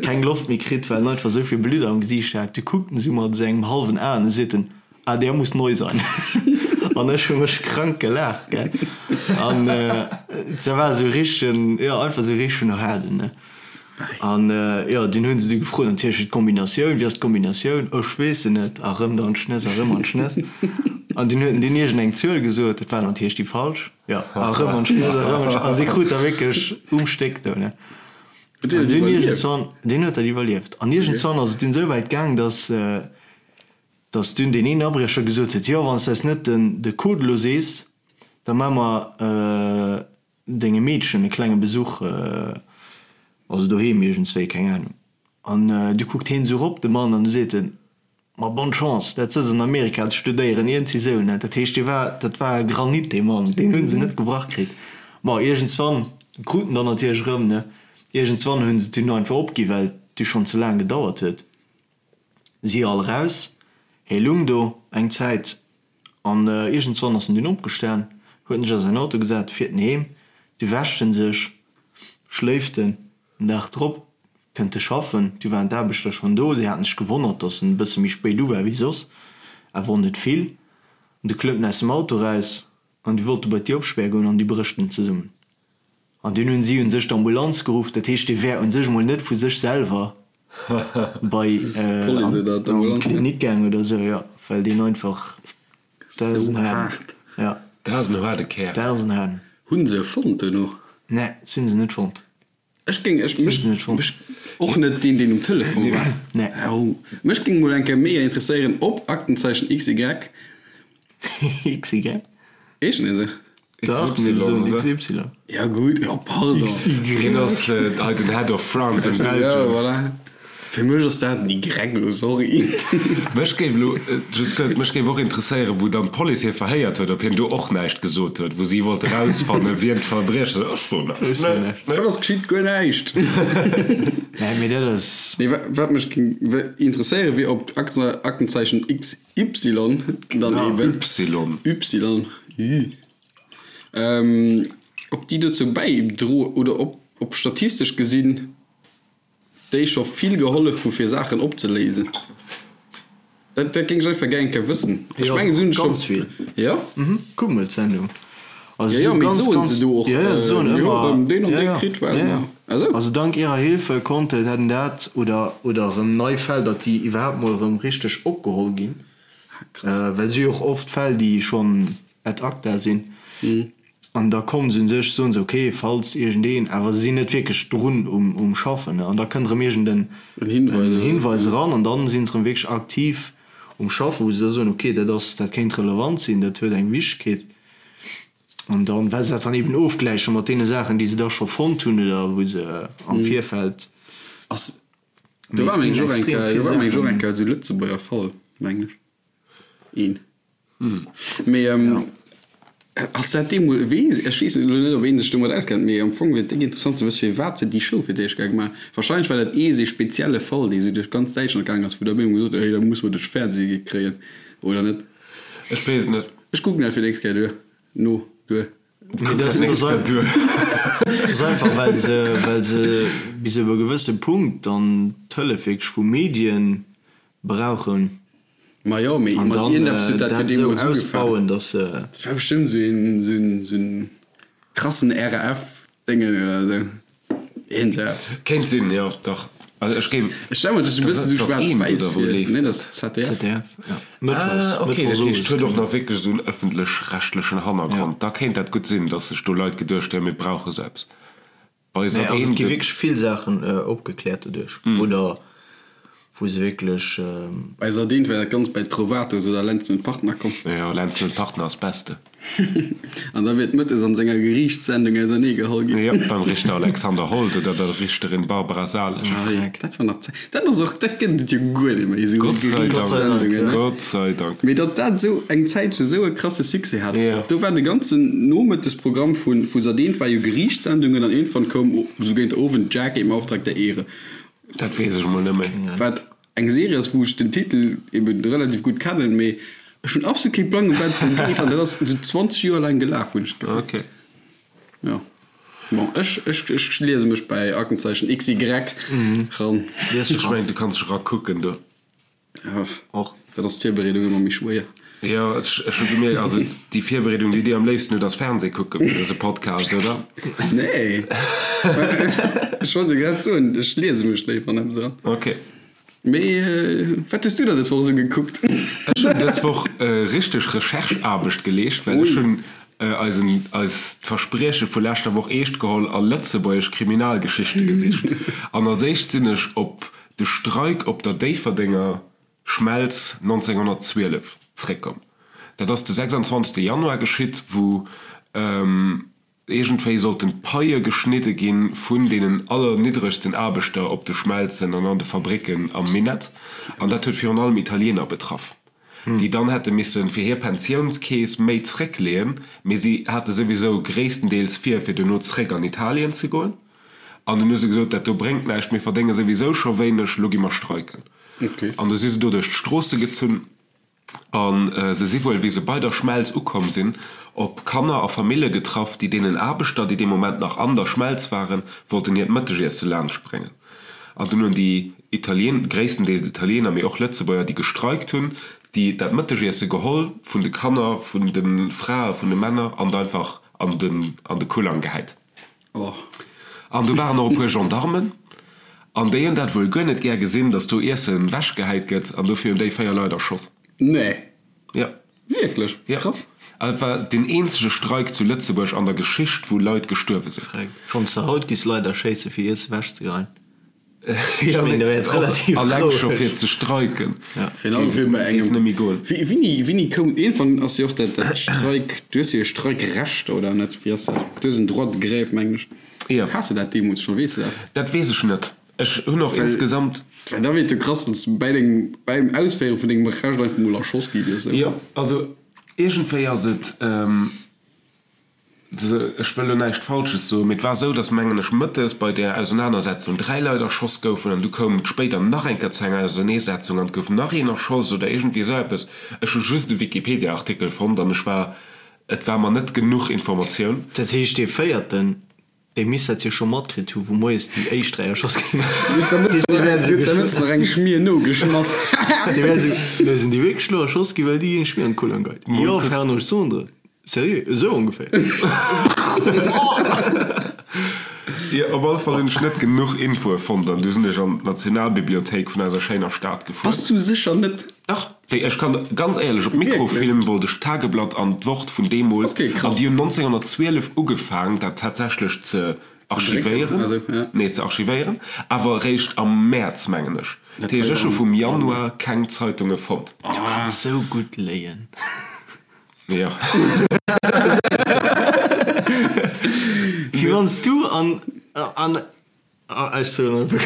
keng Loft méi kritt, well en einfach esou vill Blutt am Gesiicht hat. Du kuckt en esou mat esou engem hallwen Aen, du seet en, Ah, der muss neu sein. An ech hu mech krank gelaacht, gell. An dat war esou richtegen, jo, einfach esou richtegen Haarden, ne. An jo, dunn hunn se du gefrot, natierlech d'Kombinatioun, wéi ass d'Kombinatioun? Ech weess se net. A rëm dann d'Schnëss a rëm an d'Schnëss. An dunn huet en dunn iergend eng Zuel gesot, dat war natierlech déi falsch. Jo, a rëm an d'Schnëss a rëm an d'Schnëss. A si krut da wierklech um Stéck do, ne. Huet deen An dat dunn iwwerlieft? iergendzwann, deen huet dat iwwerlieft. An iergendzwann ass et dunn esou wäit gaang, dass, dass dunn deen een Abriecher gesot huet, jo, wann s de eis net den, de Code elo sees, da maache mer dengem Meedchen e klenge Besuch, also doheem iergendswéi, keng Ahnung. An du kuckt heen esou rop, de Mann, an du seet en, Ma bonne chance, dat sëtz an Amerika ze studéieren, iergendwéi esou, ne. Dat heescht, dee war, dat war e Granit, dee Mann, deen hu se net gebrach kritt. Bon, iergendswann krut en dann natierlech erëm, ne. Iergendswann hu se et dunn einfach opgi, well et du schonn ze laang gedauert huet. Si all eraus, hee lung do eng Zäit an iergendswann ass en dunn opgestan, huet en sech a säin Auto gesat, fiert en heem. Du wäscht en sech, schléift en. Den Dag drop kënnt e schaffen, du waren d'Aarbechter schonn do, si haten sech gewonnert, datt en e bësse méi spéit u war wéi soss, awer och net vill. An du klëmmt en aus dem Auto eraus an du wollt e bei d'Dier opspäre goen an du brécht en zesummen. An dunn hunn si un sech d'Ambulanz geruff, dat heescht, dee wär un sech mol net vu sech selwer bei an d'Klinik gaang oder esou, jo, well deen einfach, dat ass en haarden, jo. Dat ass en haarde Kär. Dat ass en haarden. Hunn se e fonnt duerno? Nee, se hunn se net fonnt. Ech géing, ech, mech, mech, och net deen, deen um Telefon war. Nee. Oh, mech géing mol eng Kéier mega interesséieren, ob Aktenzeichen XY. XY? Heeschen déi esou? Dach, mir soen XY. Ja gutt, jo pardon. XY. Hien ass hei den Head of France and Belgium. Ja, voilà. Fir mech ass dat en Y elo, sorry. Mech géif elo, just kuerz, mech géif och interesséieren, wou dann d'Police hie verhéiert huet, ob hien do och näischt gesot huet, wou si wollte rausfannen, wien d'Verbriecher sinn. Ech soen näischt, nee, nee. Wat ass geschitt? Guer näischt. Nee, mee dat ass. Nee, wat mech géing interesséieren, wier, ob Aktenzeichen XY dann eben. Y. Y, ü. Ob déi dozou bäidroen oder ob statistesch gesinn déi scho vill gehollef hu fir Saachen opzeléisen. Dat dat géing ech einfach gär eng Kéier wëssen. Ech mengen se hunn scho. Ganz vill. Jo? Mhm, kuck mol d'Sendung. Also jo, jo, mee soen se do och, mir hu erëm deen an dee kritt, well mer. Ah sou. Also dank ihrer Hilfe konnte dat an dat oder oder erëm nei Fäll, datt déi iwwerhaapt mol erëm richteg opgeholl ginn. Well si jo och oft Fäll, déi schonn ad acta sinn. An da kommen se un sech, soen se, ok, falls iergendeen, awer se sinn net wierklech drun um Schaffen, an da kënnt erëm iergend en Hinweis eran an dann sinn se erëm wierklech aktiv um Schaffen, wou se da soen, ok, dat ass, dat kéint relevant sinn, dat huet eng Wichtegkeet. An dann, well se dat dann eben ofgläiche mat deene Saachen, déi se da scho fonnt hunn oder wou se am Virfeld. Ass, do war meng ech och eng Kéier, do war meng ech och eng Kéier esou Lëtzebuerger Fall, mengen ech. Een. Mee ass dat deemools, weess, ech weess elo net, ob ee sech domat auskennt, mee am Fong wier et déck interessant ze wësse firwat se déi Show fir d'éischt gemaach hunn. Warscheinlech war dat ee sou spezielle Fall, dee sou duerch ganz Däitschland gaangen ass, wou da op eemol gesot huet, hey, da musse mer duerch Fernseh kréien, oder net? Ech weess et net. Ech kucken dat fir d'nächst Kéier duer, no, duer. Mee dat ass einfach, well se, well se bis op e gewësse Punkt dann d'Hëllef wierklech vu Medien brauchen. Ma jo, mee An mat dann iergendeppes huet dat jo dat esou deemools ugefaangen. ausbauen, dass se. Dat war bestëmmt esou een, esou een, esou en krassen RAF-Déngen oder esou. Iergendeppes. Kéint sinn, jo, dach. Also ech géing. Ech stelle mer dat esou e bëssen esou schwaarz-wäiss vir. Nee, dat ass ZDF. ZDF, ja. Mëttwochs, Ah, okay, dat mëttwochs heescht, owes, huet och genau. nach wierklech esou en ëffentlech-rechtlechen Hannergrond. Da kéint dat gutt sinn, dass sech do Leit geduecht hunn, mir brauche sou eppes. Bei Nee, Sat also et 1 gi gëtt. wierklech vill Saachen opgekläert doduerch, oder wou se wierklech. Bei Sat 1 war dat Ganzt bei Trovatos oder Lenzen und Partner komm. Jo, Lenzen und Partner ass beste. An da wier et mëttes an senger Geriichtssendung ausernee geholl ginn. Jo, beim Richter Alexander Hold oder der Richterin Barbara Salesch. Ah jo, dat war nach Zäit. Dat ass och, dat gëtt et jo guer net méi, esou Gott sei Dank, Geriichtssendungen, ne? Gott sei Dank. Mee datt dat esou eng Zäitche esou e krasse Succès hat. Jo. Do war de ganzen Nomëttesprogramm vu vu Sat.1 war jo Geriichtssendungen an iergendwann koum esou géint Owend Jackie im Auftrag der Ehre. Dat weess ech mol net méi. Wat eng Serie ass, wou ech den Titel eben relativ gutt kennen, mee ech hunn absolut kee Plang, ëm wat et do geet an dat ass esou 20 Joer laang gelaf, hunn ech d'Gefill. Ok. Jo. Bon, ech, ech, ech liese mech bäi Aktenzeichen XY ran. Ech mengen, du kanns dech erakucken do. Ja, och. Dat ass d'Virbereedung ëmmer méi schwéier. Jo, ech, ech hu gemierkt, also déi Virbereedung, déi dir am léifsten hutt, ass Fernseh kucken fir dëse Podcast, oder? Nee. Ech wollt jo grad soen, ech liese mech léiwer an eppes eran. Ok. Mee wat hues du dann dës Woch esou gekuckt? Ech hunn dës Woch richteg Recherche-Aarbecht geleescht, well ech hunn eisen, eist Versprieche vu leschter Woch eescht geholl a lëtzebuergesch Kriminalgeschichte gesicht. An als éischt sinn ech op de Streik op der Déifferdenger Schmelz 1912 zréckkomm. Dat ass de 26 Januar geschitt, wou iergendwéi sollten d'Paie geschnidde gi vun deenen allerniddregsten Aarbechter op de Schmelzen an an de Fabricken am Minett. An dat huet virun allem Italiener betraff, déi dann hätte misse fir hir Pensiounskeess méi zréckleeën, mee si hate souwisou gréisstendeels vir, fir duerno zréck an Italien ze goen. An dunn hu se gesot, dat do bréngt näischt, mir verdénge souwisou scho wéineg, lo gi mer streiken. An du si se do duerch d'Stroosse gezunn a se si wuel, wéi se bei der Schmelz ukomm sinn, op Kanner a Famille getraff, déi deenen Aarbechter, déi dee Moment nach an der Schmelz waren, wollten hiert Mëttegiesse laanschtbréngen. An dunn hunn déi Italien, gréisstendeels Italiener, mee och Lëtzebuerger, déi gestreikt hunn, déi dat Mëttegiesse geholl vun de Kanner, vun de Frae, vun de Männer an et einfach an de Kullang gehäit. Oh. An do waren och e puer Gendarmen, an déi hunn dat wuel guer net gär gesinn, datt do Iessen wechgehäit gëtt, an dofir hunn déi 4 Leit erschoss. Nee. Jo. Wierklech? Jo. Krass. An et war deen eenzege Streik zu Lëtzebuerg an der Geschicht, wou Leit gestuerwe sinn. Wann s de haut giss Leit erschéisse fir Iesse wechzegeheien. Ja, mee och alleng scho fir ze streiken géif net méi goen. Wéini, wéini koum, iergendwann ass jo och dat, dat Streik, du hues jo e Streikrecht, oder net? Wéi ass dat? Du hues en Droit de grève, mengen ech. Jo. Has de dat deemools schonn? Weess de dat? Dat weess ech net. Ech hunn och insgesamt. Well da wier et jo krass, wann s de bäi dengem, bäim Ausféiere vun dengem Recht einfach mol erschoss gi wiers. Jo, also iergendwéi ass et, ech wëll elo näischt Falsches soen, mee et war esou, datt, mengen ech, mëttes bei där Ausenanersetzung 3 Leit erschoss goufen an du koum et spéider nach eng Kéier zu enger Auserneesetzung an et gouf nach een erschoss oder iergendwéi esou eppes. Ech hu just e Wikipedia-Artikel fonnt an ech war, et war mer net genuch Informatioun. Dat heescht, dee véierten, Dee misst dat jo scho matkritt hu wou moies déi éischt 3 erschoss ginn. Huet der Mëtz nach eng Schmier nogeschmass? Dee wär esou, Nee, sinn déi wierklech elo erschoss ginn, well déi eng Schmier an d'Kull angeit? Jo, Fernand Sondre, sérieux, esou ongeféier. Jo, op alle Fall hunn ech net genuch Infoe fonnt an du sinn ech an d'Nationalbibliothéik vun eiser schéiner Stad gefuer. Bass du sécher net? Dach, wéi ech kann ganz éierlech, op Mikrofilm wollt ech d'Tageblatt an d'Wort vun deemools, an déi hunn 1912 ugefaang dat tatsächlech ze archivéieren, nee ze archivéieren, awer eréischt am Mäerz mengen ech. Dat heescht ech hu vum Januar keng Zeitunge fonnt. Du kanns sou gutt léien. Jo. Wéi wann s du an an. Ech soen einfach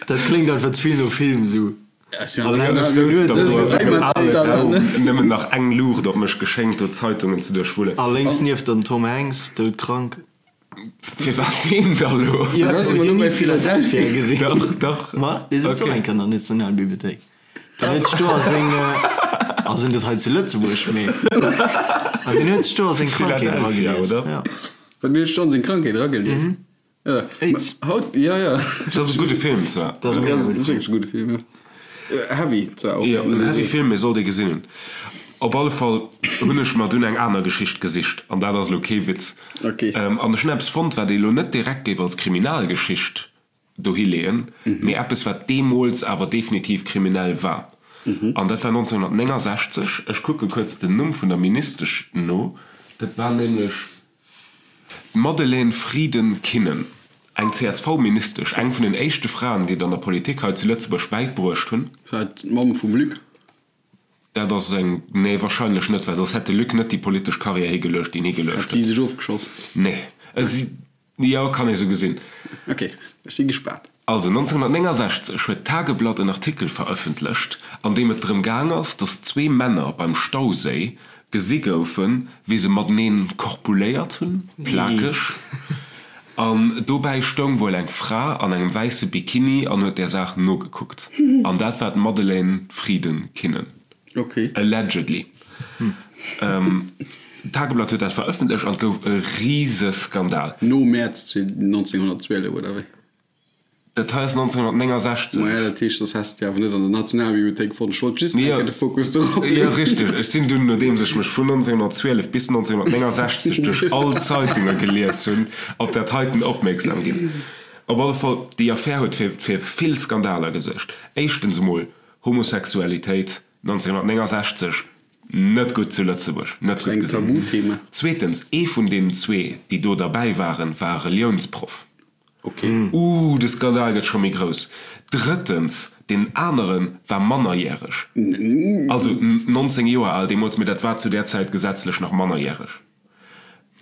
Dat kléngt einfach ze vill no Film esou. Nëmmen nach eng Luucht op mech geschéngt, do Zeitungen ze duerchwullen. A lénks nieft der den Tom Hanks, doudkrank. Firwat deen da lo? Jo, hutt dir ni Philadelphia gesinn? Dach, dach. Ma dee sëtzt och eng Kéier an der Nationalbibliothéik. Deen huet sech do a seng, also net hei zu Lëtzebuerg, mee an deen huet sech do a seng Krankheet Philadelphia, eragelies. oder? Ja. Wat mir huet scho seng Krankheet eragelies. Ja. Aids. Haut, ja, ja. Dat ass e gudde Film zwar. Dat ass e mega gudde Film. Dat ass wierklech e gudde Film, ja. Heavy zwar och. Jo, en heavy Film, mee sollt ee gesinn hunn. Op alle Fall hunn ech mer dunn eng aner Geschicht gesicht, an dat ass elo kee Witz. Okay. An ech hunn eppes fonnt, wat ee elo net direkt géif als Kriminalgeschicht dohi leeën, mee eppes wat deemools awer definitiv kriminell war. An dat war 1969, ech kucke kuerz den Numm vun der Ministesch no, dat war nämlech d'Madeleine Frieden-Kinnen, eng CSV-Ministesch, eng vun den éischte Fraen, déi et an der Politik hei zu Lëtzebuerg wäit bruecht hunn. War et d'Mamm vum Luc? Dat ass eng, nee, wahrscheinlech net, well soss hätt de Luc net déi politesch Karriär higeluecht, déi en higeluecht huet. Hat si sech ofgeschoss? Nee, si. Jo, kann ee sou gesinn. Ok, ech si gespaant. Also 1969 huet d'Tageblatt en Artikel verëffentlecht, an deem et drëm gaang ass, datt zwee Männer beim Stauséi gesi goufen, wéi se mateneen korpuléiert hunn, plakeg. An dobäi stoung wuel eng Fra an engem wäisse Bikini an huet där Saach nogekuckt. An dat war d'Madeleine Frieden-Kinnen. Allegedly. D'Tageblatt huet dat verëffentlecht an et gouf e Riseskandal. No Mäerz 1912, oder wéi? Dat hei ass 1969. Maja, dat heescht, soss häss de déi awer net an der Nationalbibliothéik fonnt. Ech wollt just eng Kéier de Fokus dorop leeën. Jo, richteg. Ech sinn dunn, nodeems ech mech vun 1912 bis 1969 duerch all d'Zeitunge gelies hunn, op dat heiten opmierksam ginn. Op alle Fall, déi Affär huet fir vill Skandaler gesuergt. Éischtens emol Homosexualitéit, 1969 net gutt zu Lëtzebuerg, net gutt Kleng gesinn. Tabuthema. Zweetens, ee vun deenen zwee, déi do derbäi waren, war e Reliounsproff. Ok. Ooh, de Skandal gëtt scho méi grouss. Drëttens, deen anere war mannerjäreg, also 19 Joer al deemools, mee dat war zu där Zäit gesetzlech nach mannerjäreg.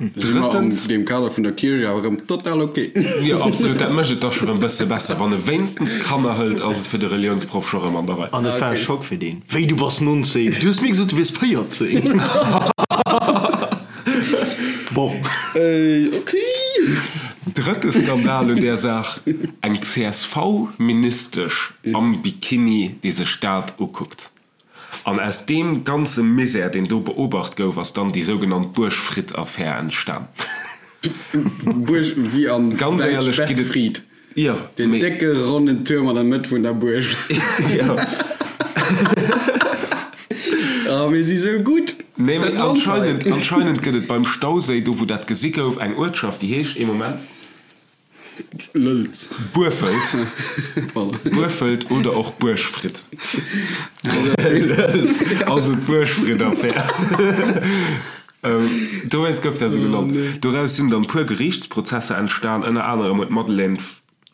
Drëttens. An deem Kader vun der Kierch awer erëm total ok. Jo, absolut, dat mécht et da scho rëm bësse besser. Wann e wéinstens Kanner hëlt, ass et fir de Reliounsproff scho rëm an der Rei. An et war e Schock fir deen. Wéi, du bass 19? Du hues mir gesot, du wiers 14! Bon. Ok. Drëtte Skandal un där Saach, Eng CSV-Ministesch am Bikini, déi sech dat ukuckt. An aus deem ganze Misär, deen do beobacht gouf, ass dann déi sougenannt Buergfried-Affär entstan. Buerg wéi an Ganz Däitsch éierlech gitt et. Bergfried, Jo, deen mee. décke ronnen Tuerm an der Mëtt vun der Buerg. Jo. Oh, mir si sou gutt! Nee, mee Dat Land hei. anscheinend, anscheinend gëtt et beim Stauséi, do wou dat gesi gouf, eng Uertschaft, déi heescht, ee Moment. Lëlz. Buerfelt. Voilà. Buerfelt oder och Buergfritt. Lëlz. Also d'Buergfritt-Affär. Dowéinst gouf dat esou genannt. Doraus sinn dann puer Geriichtsprozesser entstan. Ënner anerem huet d'Madeleine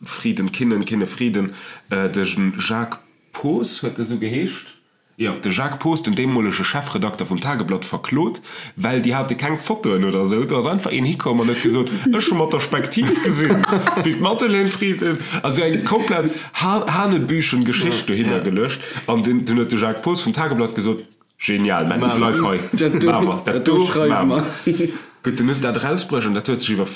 Frieden-Kinnen, Kinne-Frieden, de Jacques Poos, huet e sou geheescht? Jo, de Jacques Poos, den deemolege Chefredakter vum Tageblatt, verklot, well déi hate keng Fotoen oder esou. Do ass einfach een hikomm an huet gesot, Ech hu mat der Spektiv gesinn, wéi d'Madeleine Frieden. Also eng komplett hanebüchen Geschicht dohinner geluecht. An dunn huet de Jacques Poos vum Tageblatt gesot, Genial, mä bleiw hei, maache mer, dat do maache mer. Gutt, dunn hu se dat erausbruecht an dat huet sech iwwer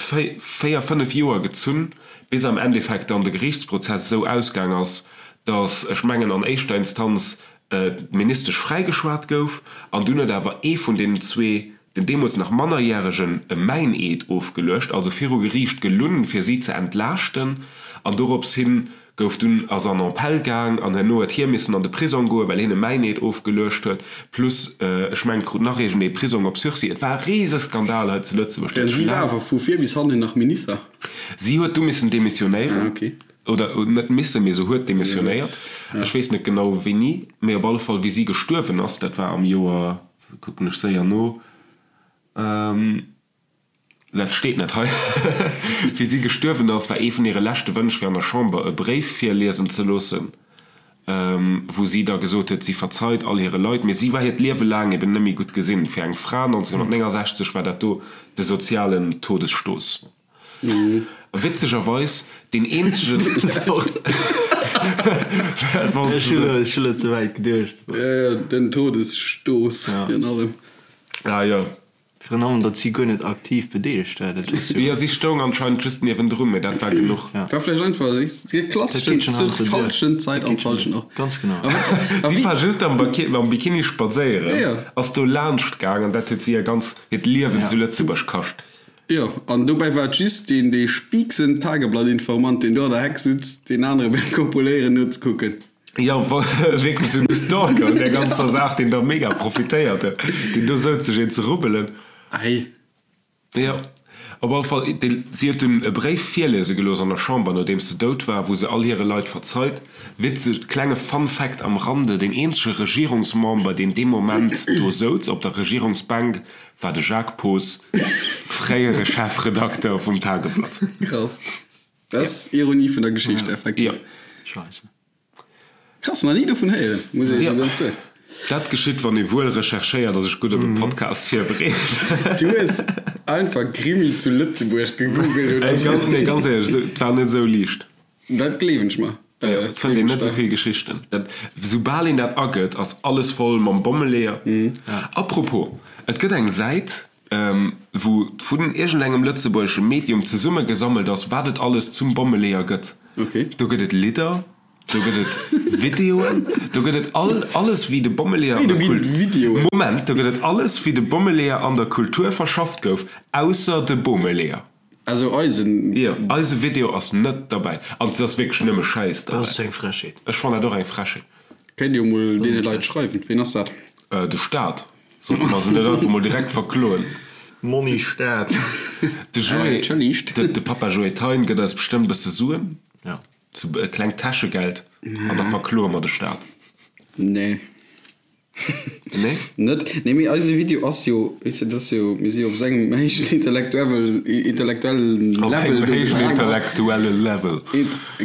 véier, fënnef Joer gezunn, bis am Endeffekt dann de Geriichtsprozess esou ausgaang ass, datt, ech mengen an éischter Instanz, d'Ministesch fräigeschwat gouf an dunn huet awer ee vun deenen zwee, den deemools nach Mannerjäregen, e Mäineed ofgeluecht, also viru Geriicht gelunn, fir si ze entlaaschten an dorops hin gouf dunn ass an Appell gaang an herno huet hie missen an de Prisong goen, well hien e Mäineed ofgeluecht huet, plus ech mengen krut nach iergendee Prisong op Sursis. Et war e Riseskandal hei zu Lëtzebuerg. Dat Si war awer vu vir bis hannen nach Minister. Si huet du missen demissionéieren, oder net missen, mee se huet demissionéiert. Ech weess net genau wéini, mee op alle Fall wéi si gestuerwen ass, dat war am Joer, kucken ech séier no, Dat steet net hei. Wéi si gestuerwen ass, war ee vun hire leschte Wënsch, fir an der Chamber e Bréif virliesen ze loossen, wou si da gesot huet, si verzeit all hire Leit. Mee si war hiert Liewe laang eben net méi gutt gesinn. Fir eng Fra 1969 war dat do de sozialen Todesstoß. Witzegerweis deen eenzegen. Ech hu lo ze wäit geduecht. Jo, jo, den Todesstoß virun allem. Ah jo. Virun allem, datt si guer net aktiv bedeelegt war, dat ass jo. Jo, si stoung anscheinend just niewendrun, mee dat war genuch. War vläicht einfach de klasseschen zur falschen Zait am falschen Ort. Ganz genau. Si war just am Bikini spadséieren, ass do laanscht gaang an dat huet si hir ganz hiert Liewen zu Lëtzebuerg kascht. Jo, an dobäi war et just deen dee spiiksen Tageblatt-Informant, deen do an der Heck sutz, deen anere beim Kopuléieren nozekucken. Jo, wierklech esou de Stalker un där ganzer Saach, deen da mega profitéiert huet, deen do souz sech een ze rubbelen. Ei. Jo, op alle Fall, si huet dunn e Bréif virliese gelooss an der Chamber, nodeems se dout war, wou se all hire Leit verzeit. Witzeg, klenge Fun Fact am Rande, deen eenzege Regierungsmember, deen dee Moment do souz op der Regierungsbänk, war de Jacques Poos, fréiere Chefredakter vum Tageblatt. Krass. Dat ass Ironie vun der Geschicht, effektiv. Jo. Scheisse. Krass, nach ni dovun héieren, muss ech esou ganz soen. Dat geschitt, wann ee wuel recherchéiert a sech gutt op e Podcast virbereet. Du hues einfach Krimi zu Lëtzebuerg gegoogelt oder esou. Nee, ganz éierlech, et war net esou liicht. Dat gleewen ech mer. Et fënnt een net esou vill Geschichten. Dat, soubal een dat agëtt, ass alles voll mam Bommeleeër. Apropos, et gëtt eng Säit, wou vun iergendengem lëtzebuergesche Medium zesummegesammelt ass, wat et alles zum Bommeleeër gëtt. Do gëtt et Lidder, do gëtt et Videoen, do gëtt et all, alles wéi de Bommeleeër an der Kultur, Moment, do gëtt et alles wéi de Bommeleeër an der Kultur verschafft gouf, ausser de Bomeleeër. Also eisen. Jo, eise Video ass net derbäi. An et ass wierklech nëmme Schäiss derbäi. Dat ass eng Frechheet. Ech fannen dat och eng Frechheet. Kéint jo mol deene Leit schreiwen. Ween ass dat? De Staat. Sollte mer se net einfach mol direkt verkloen? Monni Staat. De Joé, de Papa Joé Thein gëtt eis bestëmmt bësse Suen. Ja. Sou e klengt Täschegeld. An da verkloe mer de Staat. Nee. Nee? Net? Nee, mee eise Video ass jo, weess de, dat ass jo, mir si jo op esou engem héijen intellektuelle, intellektuellen Op Level engem do héijen gefaangen. intellektuelle Level.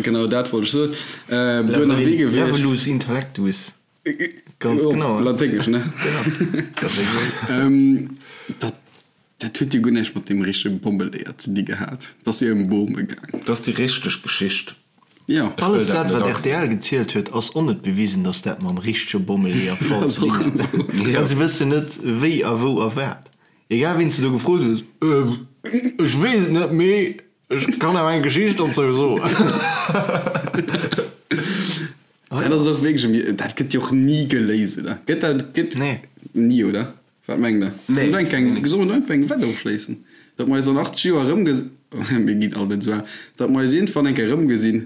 Genau dat wollt ech soen. Do ënnerwee gewiescht. Levelus intellectus. Ganz genau. Op Laténgesch, ne? Genau. Dat, dat huet jo guer näischt mat deem richtege Bommeleeër ze di gehat. Dat ass jo ëm Bome gaang. Dat ass déi richteg Geschicht. Jo. Ech wëll Alles dat dat, net wat agesinn. rtl gezielt huet, ass och net bewisen, datt dat mam richtege Bommeleeër Dat ass ze och dinn hat. Ja. Well se wëssen net, wéi a wou a wat. Egal wien s de do gefrot hues, Äh, ech weess et net, mee ech kann awer eng Geschicht dozou soen. Dat ass och wierklech e, dat gëtt jo och ni geléist, oder? Gëtt dat, gëtt Nee. ni, oder? Wat mengt Der? Nee. Solle mer do eng, solle mer do einfach eng Wett ofschléissen, datt mer eis an 80 Joer erëmges, mir ginn all net esou al, datt mer eis iergendwann eng Kéier erëmgesinn?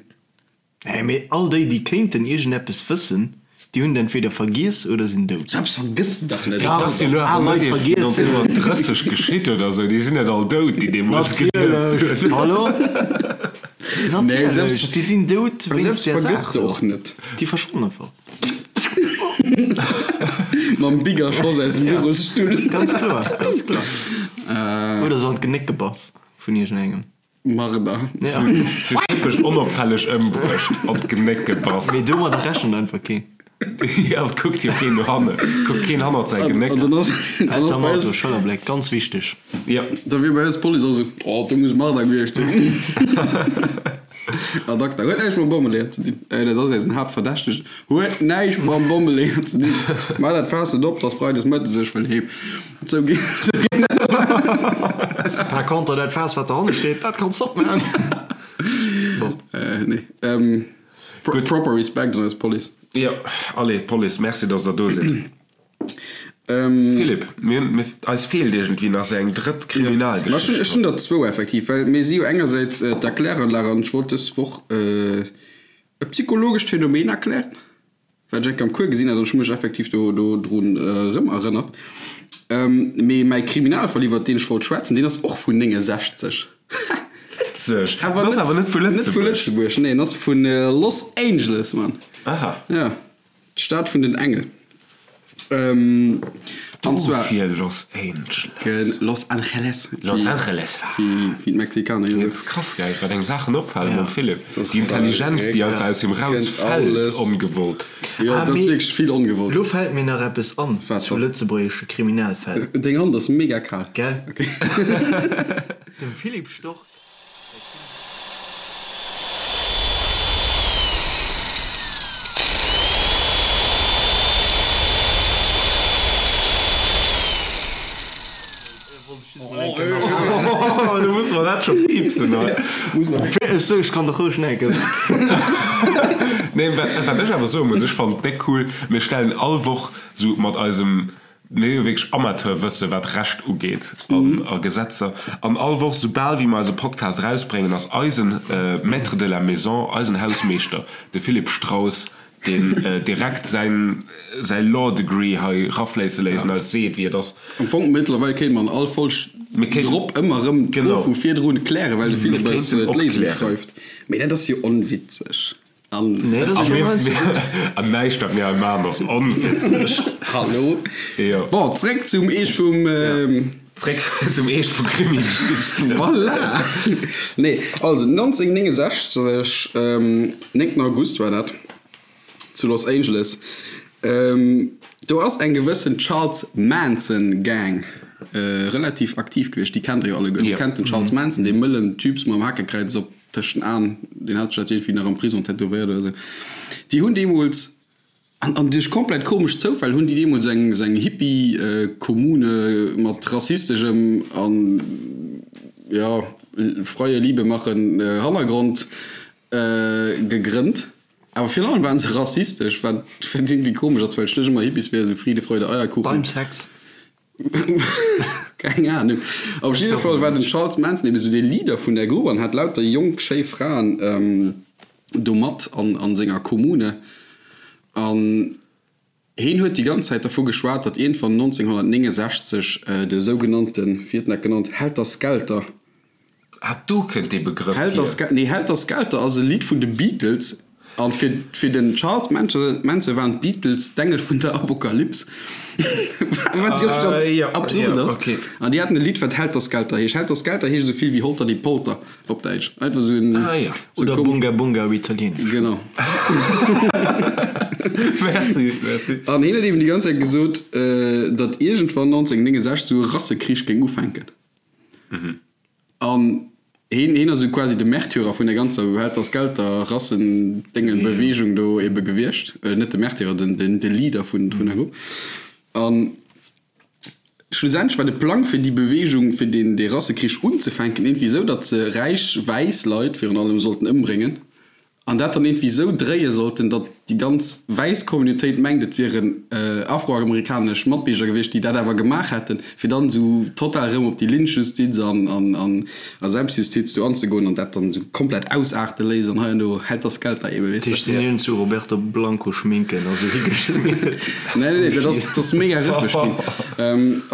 Nee, mee all déi, déi kéinten iergendeppes wëssen, déi hunn et entweder vergiess oder sinn dout. Sou eppes vergëss de dach net! Dat ass jo elo Al awer Leit net eréischt vergiessen. 1930 geschitt oder esou, déi sinn net all dout, déi deemools gelieft Natierlech! hunn. Hallo? Nee, Natierlech! selbst, Déi sinn dout wéinst selbst där vergëss Saach de do. och net. Déi verschwannen einfach. Mam Bigger Schoss aus dem Bürosstull. Ganz kloer, ganz kloer. Oder sou an d'Genéck gebass vun iergendengem. Marder. Ja. Sou typesch onopfälleg ëmbruecht, an d'Genéck gebass. Mee domadder rechent einfach keen. Jo, et kuckt jo keen no hanne, kuckt keen hannert säi Genéck. An dann ass, dann ass Ausser am bei Auto, eis, Schëllerbléck, ganz wichteg. Jo. Da wier bei eis d'Police och esou, Oh, do muss Marder gewiescht sinn. Ad acta, huet näischt mam Bommeleeër ze dinn. Dat ass eisen Haaptverdächtegen, huet näischt mam Bommeleeër ze dinn. Maach dat Faass net op, 't ass freides mëttes, ech wëll heem. Sou ginn, sou ginn dat. Par contre, dat Faass, wat dohanne steet, dat kanns de opmaachen. Bon. Nee. Proper Respekt un eis Police. Jo, allez, Police, merci, dass der do sidd. Philippe, mir hunn, mir, eis feelt iergendwéi nach esou eng drëtt Kriminalgeschicht. Ech hunn der zwou effektiv, well mir si jo engersäits d'Erkläranlag an ech wollt dës Woch e psychologescht Phänomen erklären, wat ech eng Kéier am Cours gesinn hat an ech hu mech effektiv do drun erëm erënnert. Mee mäi Kriminalfall, iwwert deen ech wollt schwätzen, deen ass och vun 69. Witzeg! En ass awer net vu Lëtzebuerg. Net vu Lëtzebuerg, nee, en ass vu Los Angeles, Mann. Aha. Ja, d'Stad vun den Engel. An zwar. Dofir Los Angeles. Los Angeles. Los Angeles. Wéi d'Mexikaner jo soen. Dat ass krass, gell, wat engem Saachen opfalen mam Philippe. Déi Intelligenz, déi einfach aus him rausfält, ongewollt. Jo, dat ass wierklech vill ongewollt. Lo fält mir nach eppes an zu lëtzebuergesche Kriminalfäll. Deng Hand ass mega kal. Gell? Dem Philippe Stork säi Krimi. Du muss mer dat scho piipsen hei. Ech sou, ech kann dach roueg näken. Nee, wat wat ech awer soe muss, ech fannen et déck cool, mir stellen all Woch sou mat eisem, mir hu jo wierklech Amateurwësse wat Recht ugeet an a Gesetzer, an all Woch soubal wéi mer eise Podcast erausbréngen, ass eisen Maître de la maison, eisen Hausmeeschter, de Philippe Straus, deen direkt säin säi Law Degree hei rafléisse léisst an eis seet wéi et ass. Am Fong mëttlerweil kéinte mer an all Folg drop ëmmer erëm d'Fro vu virdrun klären, well de Philippe eis d'Léisung schreift. Mee dat ass jo onwitzeg. An An näischt wat mir hei maachen ass onwitzeg. Hallo. Bon, zréck zum Eescht vum. Zréck zum Eescht vu Krimi-Geschichten. Voilà! Nee, also 1969, 9 August war dat, zu Los Angeles, do ass eng gewëssen Charles Manson Gang relativ aktiv gewiescht. Déi kennt der jo alleguer. Dir kennt den Charles Manson, dee mëllen Typs mam Hakekräiz op tëscht den Aen, deen hat sech dat iergendwéi nach am Prison tätowéiert oder esou. Déi hunn deemools An an duerch komplett komesch Zoufäll hunn déi deemools eng esou eng Hippie-Kommune mat rassisteschem an, jo, freie Liebe machen Hannergrond gegrënnt. Awer virun allem waren se rassistesch, wat iergendwéi komesch ass, well schlicht ëmmer Hippies wier esou Friede, Freude, Eierkuchen. Beim Sex. Keng Ahnung. Op jidde Fall war den Charles Manson eben esou dee Leader vun där Grupp an hat lauter jonk, schéi Fraen do mat an senger Kommune. An heen huet déi ganz Zäit dervu geschwat, datt iergendwann 1969 de sougenannten, wéi huet en dat genannt, Helter Skelter, Ah, do kënnt dee Begrëff hier. Nee, Helter Skelter ass e Lidd vun de Beatles. An fir, fir den Charles Manson waren d'Beatles d'Engel vun der Apokalyps. Wat jo schon Ah, ja, absurd ja, ass. okay. An déi haten e Lidd, wat Helter Skelter heescht. Helter Skelter heescht esou vill wéi Holter die Polter op Däitsch. Einfach esou en. Ah, ja. Sou Oder komesch. Bunga Bunga op Italieenesch. Genau. Merci, merci. An hien huet eben déi ganz Zäit gesot, datt iergendwann 1969 esou e Rassekrich géing ufänken. An heen, heen ass esou quasi de Märtyrer vun der ganzer Helter Skelter Rassendéngen Bewegung do ebe gewiescht. Net de Märtyrer, den, den, de Leader vun, vun der Grupp. An schlussendlech war de Plang fir déi Bewegung, fir deen, dee Rassekrich unzefänken, iergendwéi esou, datt se räich wäiss Leit virun allem sollten ëmbréngen. An dat dann iergendwéi esou dréie sollten, datt déi ganz wäiss Communautéit mengt, et wieren afroamerikanesch Matbierger gewiescht, déi dat awer gemaach hätten, fir dann esou total erëm op déi Lynchjustiz an a Selbstjustiz do anzegoen an dat dann esou komplett ausaarte léisst an hei an do Helter Skelter ebe, weess de. Tisch sinn iergend zu Roberto Blanco Schminken a sou higeschmiert. Nee, nee, dat ass, dat ass mega rëffeg ginn.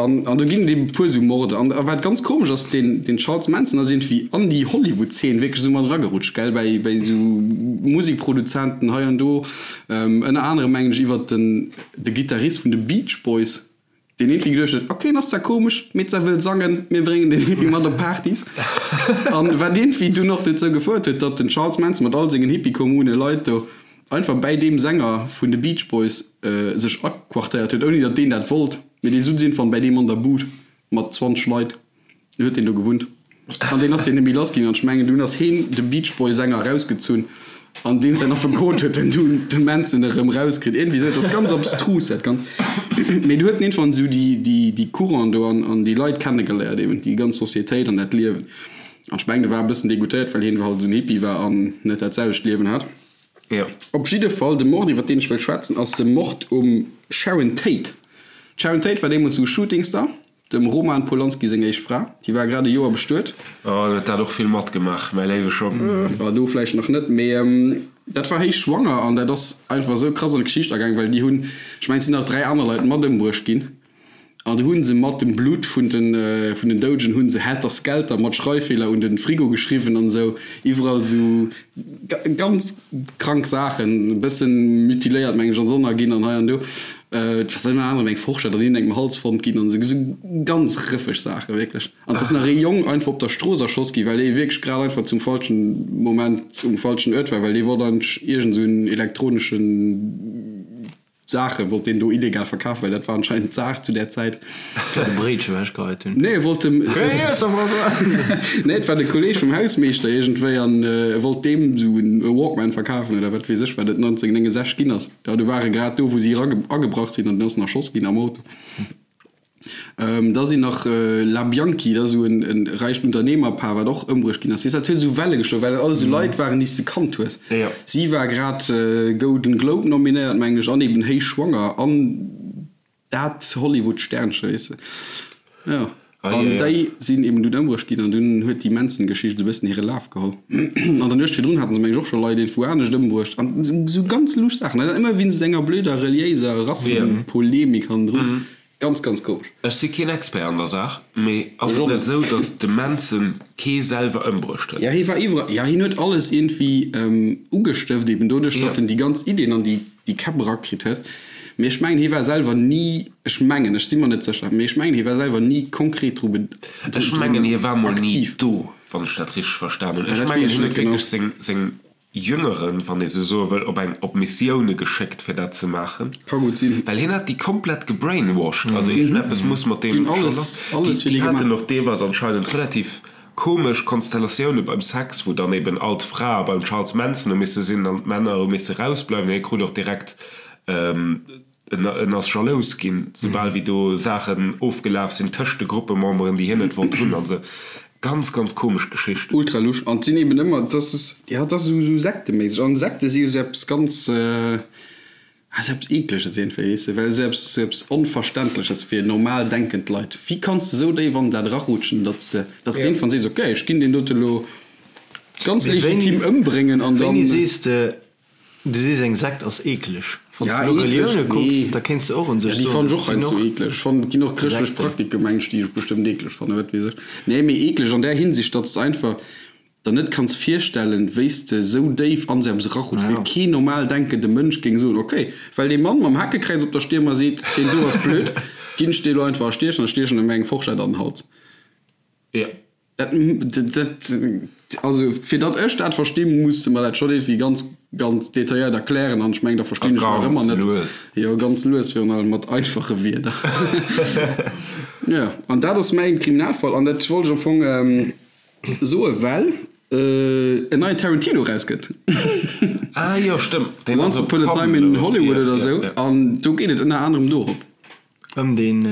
An, an do ginn et eben e puer esou Morde. An wat ganz komesch ass, deen, deen Charles Manson ass iergendwéi an déi Hollywood-Zeen wierklech esou mat eragerutscht, gell, bäi, bäi esou Musikproduzenten hei an do. Ënner anerem mengen ech iwwert den, de Gittarist vun de Beach Boys, deen iergendwéi geduecht huet, ok, en ass zwar komesch, mee zwar wëll sangen, mir bréngen deen iergendwéi mat op Partys. An wat iergendwéi dunn och dozou gefouert huet, datt den Charles Manson mat all sengen Hippie-Kommune-Leit do. einfach bäi deem Sänger vun de Beach Boys sech aquartéiert huet, ouni datt deen dat wollt, mee dee sutz iergendwann bäi deem an der Bud mat 20 Leit, du huet deen do gewunnt an deen ass deen net méi lass ginn an ech mengen dunn ass heen de Beach Boy Sänger erausgezunn an deem säin Affekot huet en dunn de Manson erëm erauskritt, iergendwéi esou, et ass ganz abstrus dat Ganzt, mee du huet en iergendwann esou déi déi déi Courant do an an déi Leit kennegeléiert eben, déi ganz Societéit an dat Liewen an ech mengen de war e bëssen degoutéiert well heen halt esou en Hippie war an net dat selwecht Liewen hat. Jo. Op jidde Fall, de Mord iwwer deen ech wëll schwätzen ass de Mord um Sharon Tate. D'Sharon Tate war deemools esou Shootingstar. Dem Roman Polanski seng éischt Fra, déi war grad e Joer bestuet. Oh, huet dat och vill matgemaach, mäi léiwe Schong. Bah, do vläicht nach net, mee dat war héich schwanger an dat ass einfach esou krass an d'Geschicht agaang, well déi hunn, ech mengen, et sinn nach 3 aner Leit mat ëmbruecht ginn an du hu se mat dem Blutt vun den, vun den Doudegen hu se Helter Skelter mat Schreiffeeler un de Frigo geschriwwen an esou, iwwerall esou ganz krank Saachen, e bëssen mutiléiert, mengen ech, an Sonner ginn an hei an do. Et ass ënner anerem eng Forschett an iergendengem Hals fonnt ginn an esou ganz rëffeg Saachen, wierklech. An et ass nach ee Jong einfach op der Strooss erschoss ginn, well dee wierklech grad einfach zum falschen Moment um falschen Uert war, well dee wollt eigentlech iergend esou en elektroneschen Saache wollt deen do illegal verkafen, well dat war anscheinend d'Saach zu där Zäit. Fir de Bréitche ewechgeheit hunn. Nee, e wollt dem. Nee, et war de Kolleeg vum Hausmeeschter iergendwéi an e wollt deem esou e Walkman verkafen oder wat weess ech, wat et 1969 ginn ass. Jo, do war e grad do, wou si agebrach sinn an den ass nach erschoss ginn am Auto. Da sinn nach La Bianchi, dat ass esou en räicht Unternehmerpaar, wat och ëmbruecht ginn ass. Weess, dat huet esou Welle geschloen, well dat alles esou Leit waren, déi s de kannt hues. Si war grad Golden Globe nominéiert, mengen ech, an eben héich schwanger an dat Hollywood-Sternchen, weess de. Jo. An déi sinn eben dunn ëmbruecht ginn an dunn huet déi Manson-Geschicht esou e bëssen hire Laf geholl. An der Nuecht virdrun haten se, mengen ech, och scho Leit iergendwou anescht ëmbruecht an esou ganz lusch Saachen. An ëmmer wéinst esou enger blöder reliéiser Rassepolemik hannendrun. Ganz, ganz komesch. Ech si keen Expert an der Saach, mee ass et net esou, datt de Manson kee selwer ëmbruecht huet? Jo, hie war iwwerall, jo, hien huet alles iergendwéi ugestëft, eben doduerch, datt en déi ganz Iddien an déi Käpp erakritt huet. Mee ech mengen, hie war selwer ni, ech mengen, ech si mer net sécher, mee ech mengen, hie war selwer ni konkret dru be, Ech mengen, hie war mol ni do, wann ech dat richteg verstan hunn. Ech mengen, hien huet wierklech seng Jüngeren, wann ee sou soe wëll, op eng op Missioune geschéckt fir dat ze maachen. Ka gutt sinn. Well hien hat déi komplett gebrainwashed, also iergendeppes muss mat deem scho lass. Déi haten och deelweis anscheinend relativ komesch Konstellatioune beim Sex, wou dann eben all d'Frae beim Charles Manson hu misse sinn an d'Männer hu misse rausbleiwen. Hie krut och direkt En ass jalous ginn, soubal wéi do Saachen ofgelaf sinn tëscht de Gruppememberen, déi hien net wollt hunn an esou. Ganz, ganz komesch Geschicht. Ultra lusch. An et sinn eben ëmmer, dat ass, jo, dat ass esou, esou sekteméisseg. An Sekte si jo esou eppes ganz, ah, esou eppes Eekleges iergendwéi, weess de, well esou eppes, esou eppes Onverständleches fir normal denkend Leit. Wéi kanns de esou déif an dat erarutschen, datt s de, datt s de iergendwann sees, okay, ech ginn deen dote lo ganz legitim ëmbréngen an dann. Wéini sees de, Du sees eng Sekt ass eekeleg. Wann s de elo Relioune kucks, da kéints de och un sech soen, déi fannen ech och heiansdo eeklech. Ech fannen, et ginn och chrëschtlech Praktike meng ech, déi ech bestëmmt eeklech fannen, wat weess ech. Nee, mee eeklech an där Hinsicht, datt s de einfach der net kanns virstellen, wéi s de esou déif an esou eppes erarutschs. Wéi keen normal denkende Mënsch géing soen, ok, well dee Mann mam Hakekräiz op der Stier mer seet, deen do ass blöd, ginn ech dee lo einfach erstiechen a stiechen em eng Forschett an den Hals. Jo. Dat, dat, also fir datt ech dat verstinn, muss de mer dat schonn iergendwéi ganz, ganz detailléiert erklären an ech mengen, da verstinn ech nach ëmmer net. Lues. Jo, ganz lues, virun allem mat einfache Wierder. Jo, an dat ass mäin Kriminalfall an dat wollt ech am Fong soe well en neien Tarantino erauskënnt. Ah jo, stëmmt. Once Upon a Time in Hollywood oder esou an do geet et ënner anerem dorop. Ëm den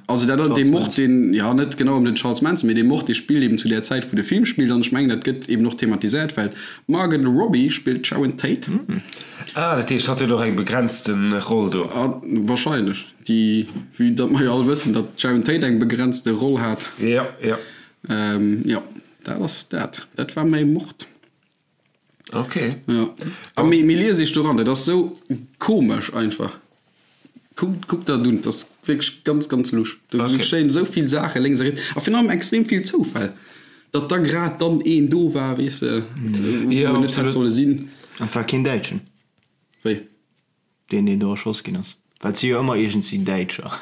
Also dat ass dee Mord, deen, jo net genau ëm den Charles Manson, mee dee Mord, dee spillt eben zu där Zäit, wou de Film spillt. An ech mengen, dat gëtt eben och thematiséiert, well d'Margot Robbie spillt d'Sharon Tate. Ah, dat heescht, hatt huet och eng begrenzte Roll do? Ah, wahrscheinlech. Déi, vue datt mer jo all wëssen, datt d'Sharon Tate eng begrenzte Roll hat. Jo, jo. Jo, dat ass dat. Dat war mäi Mord. Ok. Ja. A mee, mee lies iech do ran, dat ass sou komesch einfach. Kuckt, kuckt dat un, dat ass wierklech ganz, ganz lusch. Do okay. geschéien esou vill Saache lénks a riets a virun allem extrem vill Zoufäll, datt da grad dann een do war, weess de, wou ja, en net hätt solle sinn. An et war keen Däitschen? Wéi? Deen, deen do erschoss ginn ass. Well et si jo ëmmer iergendsi Däitscher.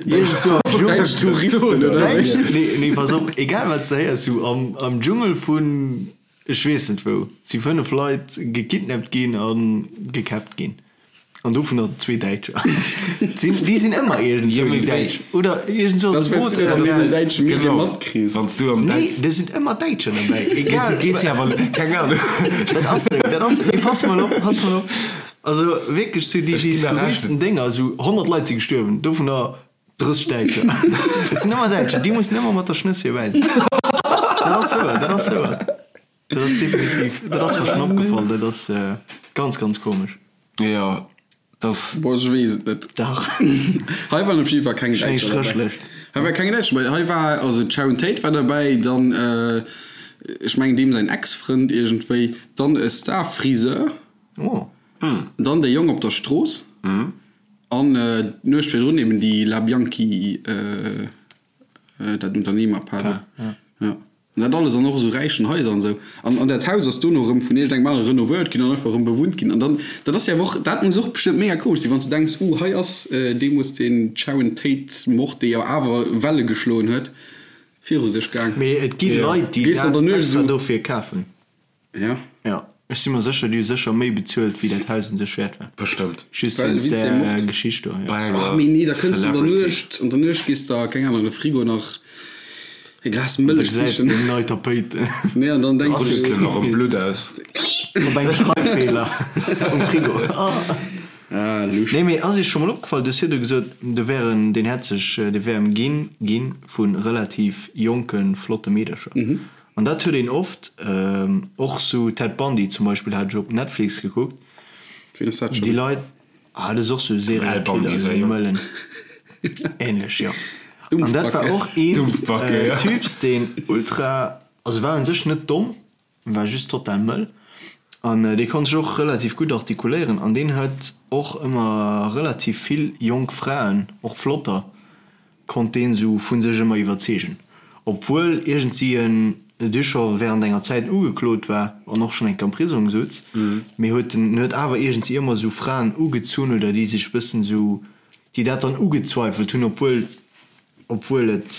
Däitsch Touristen, oder wéi? Nee, nee, pass op, egal wat s de héiers, sou am, am Dschungel vun. Ech weess net wou, si 5 Leit gekidnappt ginn a gekäppt ginn. An dovunner zwee Däitscher. Sinn, déi sinn ëmmer iergendzwou, déi Däitsch. Oder iergendzwou ass e Boot ëmmer an den däitsche Medie matkriss. Wann s du am Nee, do sinn ëmmer Däitscher derbäi, egal. Du gees jo awer, keng Ahnung. Dat ass esou, dat ass esou. Mee pass mol op, pass mol op. Also wierklech, sou déi, déi skurrilsten Dénger, sou 100 Leit si gestuerwen, dovunner 30 Däitscher. Et sinn ëmmer Däitscher, déi mussen ëmmer mat der Schnëss virbäi sinn. Dat ass wouer, dat ass wouer. Dat ass definitiv, dat ass mer schonn opgefall, dat ass ganz, ganz komesch. Jo, dat ass. Boah, ech weess et net. Dach. Hei waren op jidde Fall keng Däitscher derbäi. Hei war keng Däitscher derbäi. Hei war, also d'Sharon Tate war derbäi, dann, ech mengen deem säin Ex-Frënd iergendwéi, dann e Star-Friseur, dann dee Jong op der Strooss. An d'Nuecht virdrun eben déi La Bianchi, dat Unternehmerpaar do. Jo. An dat alles an och esou räichen Haiser an esou. An, an dat Haus ass dono erëm vun iergendengem anere renovéiert ginn an einfach erëm bewunnt ginn. An dann, dat ass jo awer och, dat muss och bestëmmt mega komesch sinn, wann s de denks, uh, hei ass deemools dee Sharon Tate-Mord, dee jo awer Welle geschloen huet, viru sech gaang. Mee et gi Leit, déi dat extra dofir kafen. Ja. Ja, ech si mer sécher, déi hu sécher méi bezuelt, wéi dat Haus un sech wäert war. Bestëmmt. Just wéinst där Geschicht do, jo. Bei enger Oh, mee nee, da kënns de an der Celebrity. Nuecht, an der Nuecht gees de, keng Ahnung, an de Frigo nach e Glas Da Mëllech gesäis sichen. de eng nei Tapéit. Nee, an dann denks Rutschs du. de nach am Blutt aus. Op engem Schreiffeeler um Frigo. Ah, lusch. Nee, mee ass iech scho mol opgefall, du hues virdu gesot, do wär en, deen hätt sech, dee wär ëmginn gi vu relativ jonke flotte Meedercher. An dat huet een oft, och sou Ted Bundy zum Beispill hat ech op Netflix gekuckt. Ween ass dat Déi schon? Leit, ah dat ass och sou e Al Bundy Serial-Killer, säi sou e Jong. Mëllen. Ähnlech, jo. An dat war Dumpfbacke. och een Dumpfbacke, ja. Typs, deen ultra, also war un sech net domm, war just total mëll. An dee konnt sech och relativ gutt artikuléieren an deen huet och ëmmer relativ vill jonk Fraen, och flotter, konnt deen sou vu sech ëmmer iwwerzeegen, obwuel iergendsi en du scho während enger Zäit ugeklot war an och schonn eng Kéier am Prisong sutz, mee huet en huet awer iergendsi ëmmer sou Fraen ugezunn oder déi sech bëssen sou, déi dat dann ugezweifelt hunn, obwuel obwuel et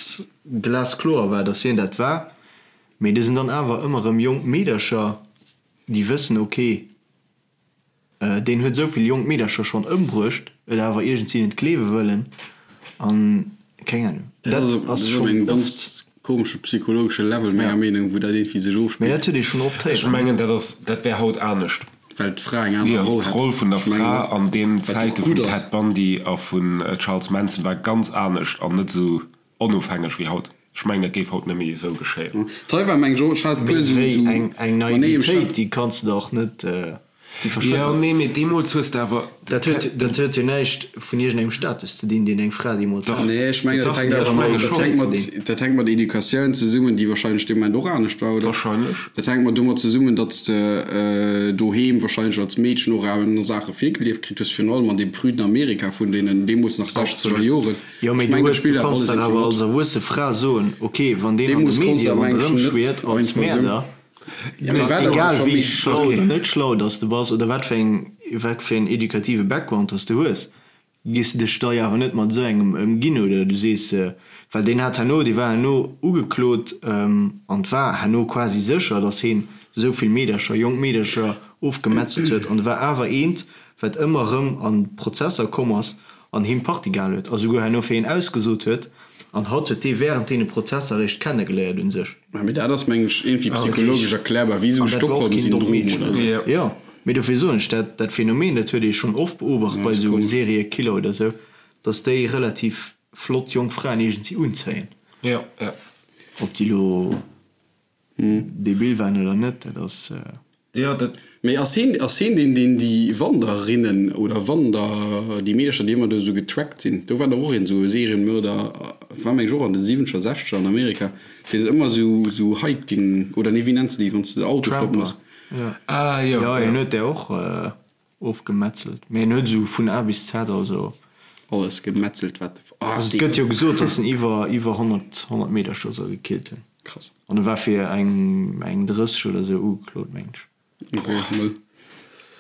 glaskloer war, datt hien dat war. Mee do sinn dann awer ëmmer erëm jonk Meedercher, déi wëssen, ok, Deen huet esou vill jonk Meedercher schonn ëmbruecht, et awer iergendsi net gleewe wëllen an keng Ahnung. Dat ass schonn engem ganz komesche psychologesche Level, menger Meenung, wou dat iergendwéi sech ofspillt. Mee dat huet ee schonn oft héieren. Ech mengen, dat ass, dat wär haut anescht. Well d'Fra eng aner Roll hätt. D'Roll vun der Fra an deenen Zäite vum Ted Bundy a vun Charles Manson war ganz anescht an net esou Onofhängeg wéi haut. Ech mengen, dat géif haut net méi esou geschéien. D'Hei war meng ech hat e puer Mee esou wéi eng eng Manéier, ech Naivitéit, hat. déi kanns de dach net, déi verschwënnt Jo, dach. nee, mee deemools hues de awer. Dat huet, dat huet jo näischt vun iergendengem Status ze dinn, deen eng Fra deemools Dach. hat. Nee, ech mengen, dat Dach, hänkt ech awer menge mat, dat schonn. hänkt mat, dat hänkt mat Educatioun zesummen, déi wahrscheinlech dee Moment och anescht war, oder? Wahrscheinlech. Dat hänkt mat domat zesummen, datt s de doheem wahrscheinlech als Meedchen och aner Saache virgelieft kritt hues, virun allem an deem prüden Amerika vun deenen deemools nach sechzeger Absolut. Joren. Jo, mee Ech du mengen, dat hues, du spillt awer kanns alles dach irgendwie awer mat. als erwuesse Fra soen, ok, wann deen an de Deemools konns Medie de awer ronderëm mengen ech net schwiert als einfach esou. Mäerder, Ja, mee dann war dat egal scho wéi méi. schlau Okay. oder net schlau dass de bass oder wat fir eng, wat fir en edukative Background dass de hues, gees de dech da jo awer net mat esou engem ëmginn oder du sees, well deen hat herno, dee war herno ugeklot an 't war herno quasi sécher, dass heen esou vill Meedercher, jonk Meedercher ofgemetzelt huet an e war awer eent, wat ëmmer erëm an Prozesser komm ass an him Partie gehal huet a souguer herno fir hien ausgesot huet, an hatt huet dee während deene Prozesser eréischt kennegeléiert un sech. Mä mee dat ass mengen ech iergendwéi psychologesch erklärbar, wéi esou An dat war och keen dommt Stockholm-Syndrom Meedchen. oder esou. Jo, mee dofir soen ech, dat dat Phänomen, dat huet ee schonn oft beobacht Ja, bei ass esou komesch. Seriekiller oder esou, dass déi relativ flott jonk Fraen iergendsi unzéien. Jo, jo. Ob déi elo Debil waren oder net, dat ass. Jo, dat. Mee ass heen, ass heen deen, deen déi Wanderinnen oder Wander, déi Meedercher, déi ëmmer do esou getrackt sinn? Do war dach och een esou e Serienmörder, war meng ech och an de siwwenzeger, sechzeger an Amerika, deen ëmmer esou, esou Hiking, oder nee, wéi nenns de déi, wann s de de Auto stoppen Tramper, hues? jo. Ah, jo, Jo, jo. hien huet där och ofgemetzelt. Mee hien huet esou vun A bis Z, also. Alles gemetzelt, wat. Ah, Also et gëtt jo gesot, datt en iwwer, iwwer 100, 100 Meedercher soll gekillt hunn. Krass. An e war fir eng, eng 30 oder sou ugeklot, mengen ech. Ok, mëll.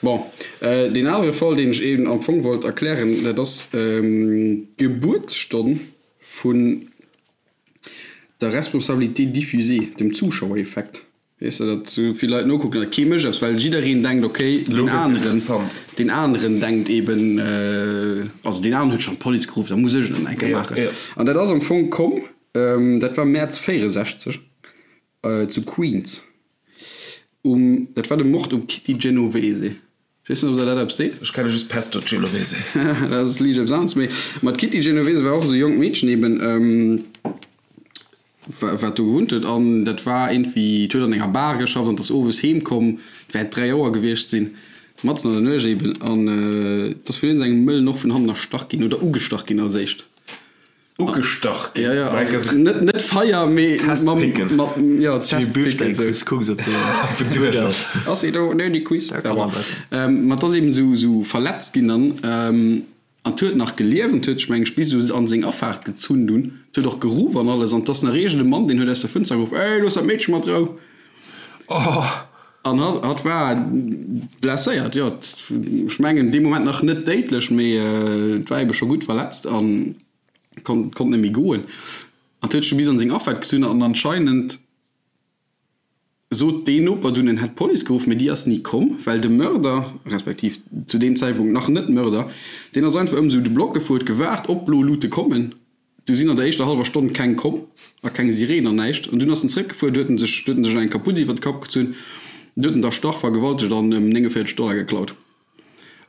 Bon, deen anere Fall, deen ech eben am Fong wollt erklären, dat ass d'Gebuertsstonn vun der Responsabilité diffusée, dem Zuschauereffekt. Weess de, datt sou vill Leit nokucken a kee mécht eppes, well jiddereen denkt, ok, deen aneren, deen aneren denkt eben, also deen aneren huet schonn d'Police geruff, da muss ech et nach eng Kéier maachen. An dat ass am Fong komm, dat war Mäerz 64 zu Queens, um, dat war de Mord um Kitty Genovese. Ech weess net, ob der dat eppes seet. Ech kenne just Pesto Genovese. Dat ass liicht eppes aneres. Mee ma d'Kitty Genovese war och esou e jonkt Meedchen eben, wat do gewunnt huet. An dat war iergendwéi, d'huet an enger Bar geschafft an ass owes heem komm, et wäert 3 Auer gewiescht sinn, matzen an der Nuecht eben. An et ass vun iergendengem Mëllen och vun hannen erstach ginn oder ugestach ginn als éischt. Ugestach ginn. Ja, ja, also net, net Feier, mee Testpicken. Mat, ja, Testpicken. Kucks, kucks, ob de duerch ass. Ass ee do? Nee, déi Quiz. Ähm, ma 't ass eben esou, esou verletzt ginn dann. Ähm, an 't huet nach gelieft an 't huet sech, meng ech, bis esou an seng Afaart gezunn dunn. 't huet och geruff an alles. An 't ass nach iergend e Mann, deen huet aus der Fënster geruff, Ey, looss dat Meedche mat Rou! Oh! An hatt, hatt war blesséiert, jo. Ech mengen dee Moment nach net déidlech, mee et war ebe scho gutt verletzt an konnt, konnt net méi goen. An huet sech du bis an seng Afaart gezunn an anscheinend sot deen Noper dunn, en hätt d'Police geruff, mee déi ass ni komm, well de Mörder, respektiv zu deem Zäitpunkt nach net Mörder, deen ass einfach ëm esou de Block gefuer, huet gewaart, ob blo Lute kommen. Du sinn an der éischter hallwer Stonn keng komm a keng Sireen an näischt. An dunn ass en zeréckgefuer, du huet en sech, du huet en sech eng Kaputz iwwer de Kapp gezunn, du huet en d'erstach, vergewaltegt an ëm 49 Dollar geklaut.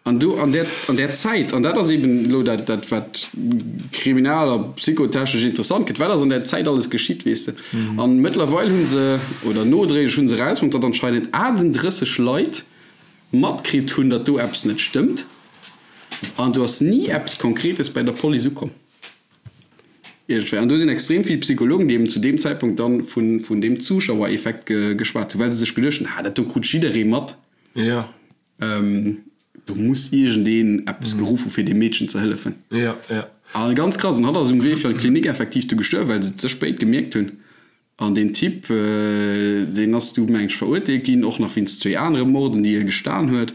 An do an där, an där Zäit, an dat ass eben elo dat, dat wat kriminal a psychotechnesch interessant gëtt, wat ass an där Zäit alles geschitt, weess de. An mëttlerweil hu se, oder nodréiglech hu se erausfonnt, datt anscheinend 38 Leit matkritt hunn, datt do eppes net stëmmt. An do ass ni eppes Konkretes bei der Police ukomm. Iergendwéi. An do sinn extrem vill Psychologen, déi eben zu deem Zäitpunkt dann vun, vun deem Zuschauereffekt ge, geschwat hunn, well se sech geduecht hunn, ah, dat do krut jidderee mat. Ja. Ähm, do muss iergendeen eppes geruff hu fir deem Meedchen ze hëllefen. Ja, ja. A ganz krass, an hatt ass um Wee fir an d'Klinik effektiv du gestuerwen, well se et ze spéit gemierkt hunn. An deen Typ, deen ass du, meng ech, verurteelt ginn, och nach wéinst zwéi anere Morden, déi hie gestan huet.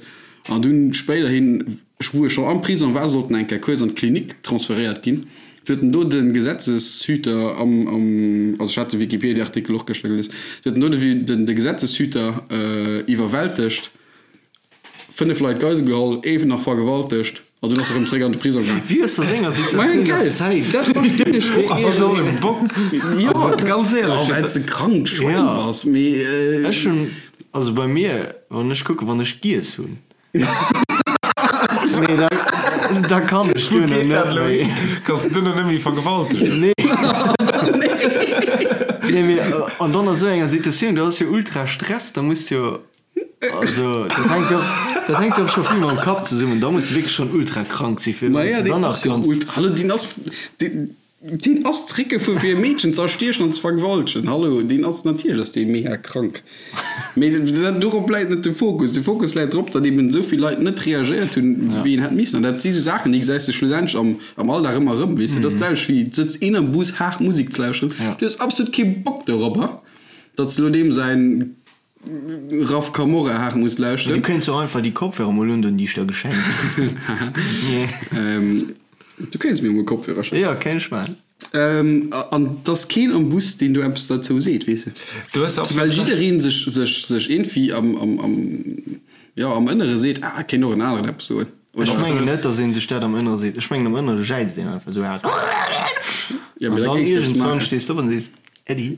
An dunn spéiderhin, wou e scho am Prisong war, sollt en eng Kéier kuerz an d'Klinik transferéiert ginn. Du huet en do de Gesetzeshüter am, am, also ech hat de Wikipedia-Artikel och gëschter gelies, du huet en do de, de Gesetzeshüter iwwerwältegt. 5 Leit Geisel geholl, ee nach vergewaltegt an dunn ass e rëm zréck an de Prisong gaang. Wéi hues de senger Situatioun nach Zäit? Dat verstinn ech och Ass och e Bock. Jo, ganz éierlech. Well s de krankt Schwäin bass, mee. Ech hunn, also bei mir, wann ech kucken, wann ech giess hunn, nee, da, da kann ech Wou duerno geet dat net elo méi. hin? Kanns de duerno net méi vergewaltegen? Nee. Nee, mee an dann a sou enger Situatioun, du ass jo ultra Stress, da muss de jo. Also dat hänkt jo dat hänkt jo och scho vill mam Kapp zesummen. Da muss de wierklech schonn ultra krank si fir Maja, wann s de deen dann nach ass jo kanns. ultra, hallo, deen ass, deen, deen ass zréckgefuer fir e Meedchen ze erstiechen an ze vergewaltegen. Hallo, deen ass, natierlech ass dee mega krank. Mee dat, dorop läit net de Fokus. De Fokus läit drop, datt eben esou vill Leit net reagéiert hunn, wéi een hätt missen. An dat si sou Saachen, déi gesäis de schlussendlech am, am Alldag ëmmer erëm, weess de. Dat ass d'selwecht wéi, et sëtzt een am Bus haart Musek ze lauschteren, du hues absolut kee Bock doropper, datt s elo deem säin Raf Camora haart muss lauschteren. Du kéints och einfach déi Kopfhörer mol undoen, déi ech der geschenkt hunn. Du kéints mir mol Kopfhörer schenken. Jo, kéint ech maachen. An 't ass keen am Bus, deen do eppes derzou seet, weess de. Du hues absolut Well Recht. jidderee sech, sech, sech iergendwéi am, am, am, jo, am Ënnere seet, ah, kéint och en aneren eppes soen. Ech mengen net, datt ee sech dat am Ënnere seet. Ech mengen, am Ënnere jäizt een einfach esou haart. Ja, mee An da dann géings de eppes iergendswann maachen. stees de op an sees, Äddi.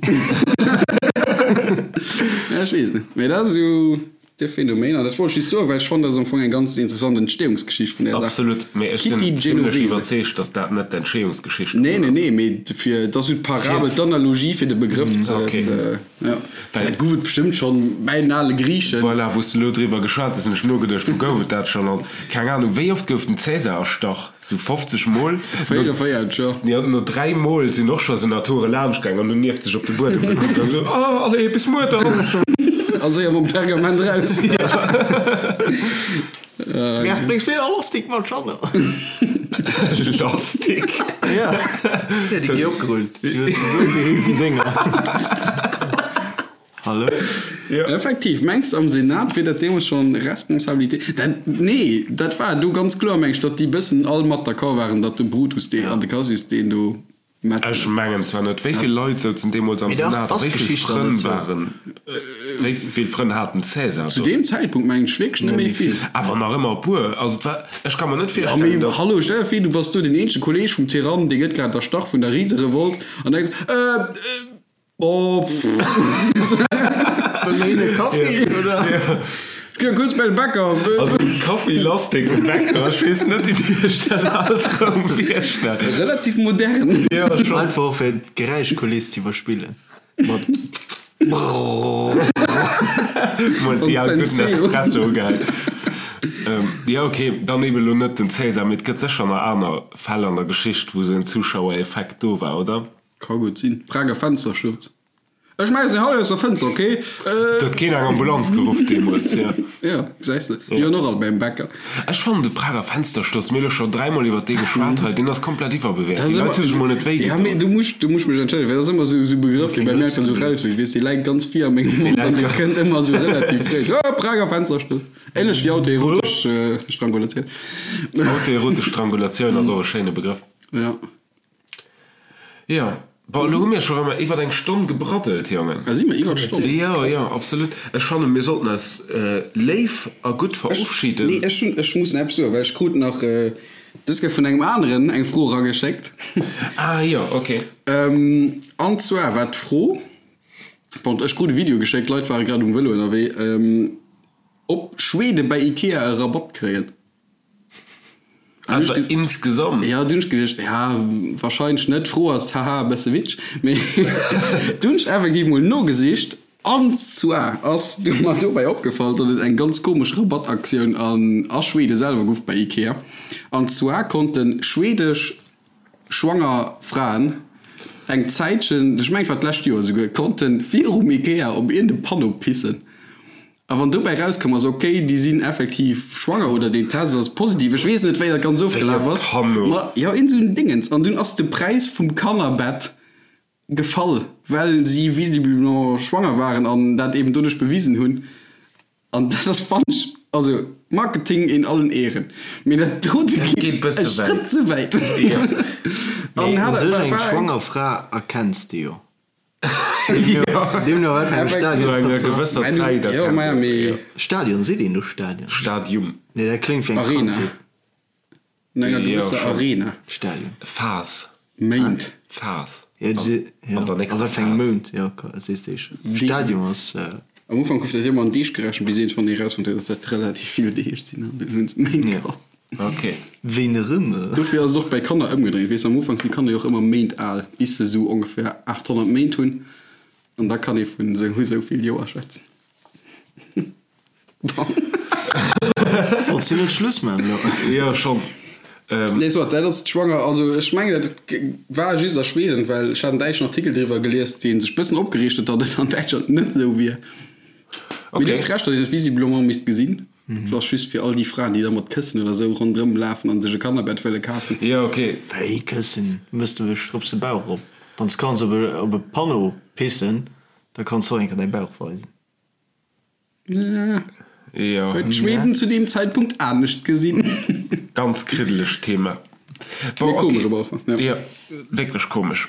Ja, ech weess net. Mee dat ass esou de Phänomen. An dat wollt ech just soen, well ech fannen, dat ass am Fong eng ganz interessant Entstehungsgeschicht vun där Saach. Absolut, mee ech sinn Kitty zimlech Genovese. iwwerzeegt, datt dat net d'Entstehungsgeschicht Nee, dovun nee, ass. nee, mee fir, dat ass esou d'Parabel, d'Analogie fir de Begrëff ze, Okay. ze, ja. Well. Dat gouf et bestëmmt schonn bäi den ale Griichen. Voilà, wou s de elo driwwer geschwat hues, hunn ech nogeduecht, wou gouf et dat schonn? An keng Anung, wéi oft gouf den Cäsar erstach? Sou 50 Mol. 44, jo. Jo, no 3 Mol sinn och scho Senatore laanscht gaang an hunn nieft sech op de Buedem gekuckt an esou, Oh, allez, bis muer dann! A séier mam Pergament raus. Merv, bréngs mir e Lastik mat, Jeanne? Lastik? Ja, ja, déi gi opgerullt. Déi hues du soss déi riesen Dénger. Hallo? Jo. Effektiv, mengs de am Senat wier dat deemools schon Responsabilité? Dat, nee, dat war do ganz kloer, meng ech, datt déi bëssen all mat d'accord waren, datt de Brutus dee an de Cassius deen do Ech metzelen. mengen zwar net. Wéi vill Leit souzen deemools am Mee dach, Senat a ass wéi vill d'Geschicht dann Frënn net sou? waren? Wéi vill Frënn hat den Cäsar? Zu deem Zäitpunkt mengen ech wierklech net méi vill. Awer nach ëmmer e puer. Also et war, ech ka mer net Ja, mee virstellen, dass. hallo, stell der vir, du bass do deen eenzege Kolleeg vum Tyrann, dee gëtt grad erstach vun der Riserevolt an denks, Äh, äh, oh, pff. Wëll mer hin e Kaffi, oder? Ech gi kuerz bei de Bäcker. Also Kaffi lass deng Bäcker, ech weess net, wéi Dir iech dat alt erëm virstellt. Relativ modern. Jo, schonn. Einfach fir d'Geräischkuliss ze iwwerspillen. Mat Brrrr. Mol déi al gudden Espresso ugehäit. Jo ok, dann eben elo net den Cäsar, mee et gëtt sécher nach aner Fäll an der Geschicht, wou esou en Zuschauereffekt do war, oder? Ka gutt sinn. Prager Fenstersturz. Ech schmäissen deng haut aus der Fënster, ok? Do huet keen eng Ambulanz geruff deemools, jo. Jo, gesäis de, déi waren och all bäim Bäcker. Ech fannen de Prager Fenstersturz, mir hu lo scho dräimol iwwer dee geschwat hei, deen ass komplett iwwerbewäert. Déi Leit hu sech mol net wéi gedoen. Ja, mee du muss, du muss mech entschëllegen, well dat ass ëmmer esou e Begrëff, dee bei mir einfach esou rausflitt, weess, dee läit ganz vir a mengem Mond an dee kënnt ëmmer esou relativ fréi. Oh, Prager Fenstersturz. Ähnlech wéi autoerotesch Strangulatioun. Autoerotesch Strangulatioun ass och e schéine Begrëff. Ja. Jo, bon, elo hu mir scho rëm iwwer eng Stonn gebraddelt, Jongen. Ah, si mer iwwer d'Stonn? Jo, jo, absolut. Ech fannen, mir sollten eis léif a gutt verofschiden. Nee, ech hunn, ech muss nach eppes soen, well ech krut nach dës Kéier vun engem aneren eng Fro erageschéckt. Ah jo, ok. An zwar war d'Fro, bon, ech krut e Video geschéckt, d'Leit ware grad um Vëlo ënnerwee, ob Schwede bei Ikea e Rabatt kréien. Einfach insgesamt? Jo, dunn hunn ech geduecht, ja, wahrscheinlech net. D'Fro ass, haha, e bësse witzeg. Mee dunn hunn ech effektiv mol nogesicht. An zwar ass du mer dobäi opgefall, datt et eng ganz komesch Rabattaktioun an a Schwede selwer gouf bei Ikea. An zwar konnte schwedesch schwanger Fraen eng Zäitchen, ech mengen et war d'lescht Joer esouguer, konnte virum Ikea op iergend e Panneau pissen. A wann dobäi rauskomm ass, ok, déi sinn effektiv schwanger oder deen Test ass positiv, ech weess net, wéi dat ganz ofgelaf ass, ma jo, iergend esou en Dingens. An dunn ass de Präis vum Kannerbett gefall, well si visiblement schwanger waren an dat eben doduerch bewisen hunn. An dat ass, fannen ech, also Marketing in allen Ehren, mee dat dote geet e Schrëtt ze wäit. Mee u sech eng schwanger Fra erkenns de jo. Deemno wat fir engem Stadion. No enger gewësser Zäit erkennt ee se, jo. Stadion, seet een do Stadion? Stadium. Nee, dat kléngt wéi eng Arena. Krankheet. No enger gewësser Arena. Stadion. Phas. Méint. Phas. Jo, jo. An der A nächster wat fir engem Phas. Mount? Jo, sees de schon. Stadium ass. Am Ufank gouf dat jo ëmmer an Deeg gerechent, bis iergendwann ee rausfonnt huet, datt dat relativ vill Deeg sinn an dunn hunn se Méint geholl. Ok. Wéi erëm? Dofir ass et och bäi Kanner ëmgedréint. Weess, am Ufank si Kanner jo och ëmmer Méint al, bis se esou ongeféier 800 Méint hunn. An da kann ee vun esou esou vill Joer schwätzen. Bon. Wollts du net Schluss maachen elo? Jo, schonn. Nee, soit, dat ass d'Schwanger. Also ech mengen, dat war just a Schweden, well ech hat en däitschen Artikel driwwer gelies, dee sech bëssen opgereegt huet, datt et an Däitschland net esou wier. Mee Dir hutt Recht, datt een et visiblement misst gesinn. Dat ass just fir all déi Fraen, déi da mat Këssen oder sou ronderëm lafen an sech e Kannerbett wëlle kafen. Jo, ok. Wéi Këssen? Mëss de wech drop de Bauch op. Wann s kanns op e op e Panneau pissen, da kanns de och eng Kéier däi Bauch weisen. Jo. Huet Schweden zu deem Zäitpunkt anescht gesinn. Ganz kriddelegt Thema. Bon, Mee komesch ok. op alle Fall, ja. Jo, wierklech komesch.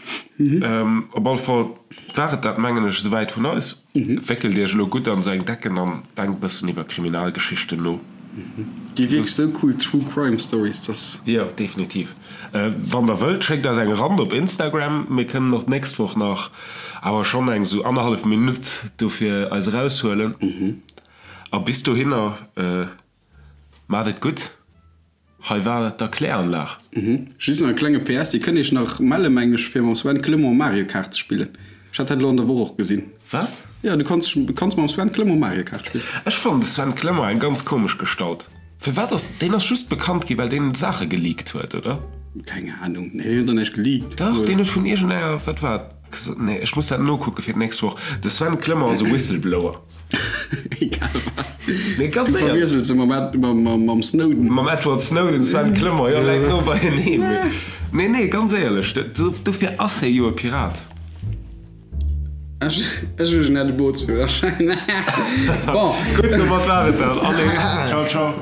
Op alle Fall war et dat, mengen ech, esouwäit vun eis. Wéckelt iech elo gutt an sou eng Decken an denkt e bëssen iwwer Kriminalgeschichten no. Gi wierklech sou cool True Crime Stories, dass. Jo, definitiv. Wann der wëllt, schéckt eis eng Rand op Instagram. Mir kënnen och d'nächst Woch nach awer schonn eng sou annerhallef Minutt dofir eis eraushuelen. A bis dohinner, maacht et gutt. Hei war d'Erkläranlag. Just nach e klenge PS, Dir kënnt Iech nach melle mengen ech fir mam Sven Clement Mario Kart ze spillen. Ech hat dat elo an der Woch och gesinn. Wat? Jo, du kanns kanns mam Sven Clement Mario Kart spillen. Ech fannen de Sven Clement eng ganz komesch Gestalt. Firwat ass deen ass just bekannt gi well deen Saache geleakt huet, oder? Keng Ahnung, nee deen huet der näischt geleakt. Dach, deen huet vun iergendenger, wat war et, nee ech muss dat nokucke fir d'nächst Woch. De Sven Clement ass e Whistleblower. Egal wat. Nee, ganz Du éierlech. verwiesels se mam Ed, mam, mam, mam Snowden. Mam Edward Snowden, Sven Clement, jo, läit no beieneen. Mee, nee, nee, ganz éierlech, dofir ass hie jo e Pirat. Ech, ech hu en hätt e Bootsführerschäin. Bon. Gutt, domat war et dat. Allez, ciao, ciao.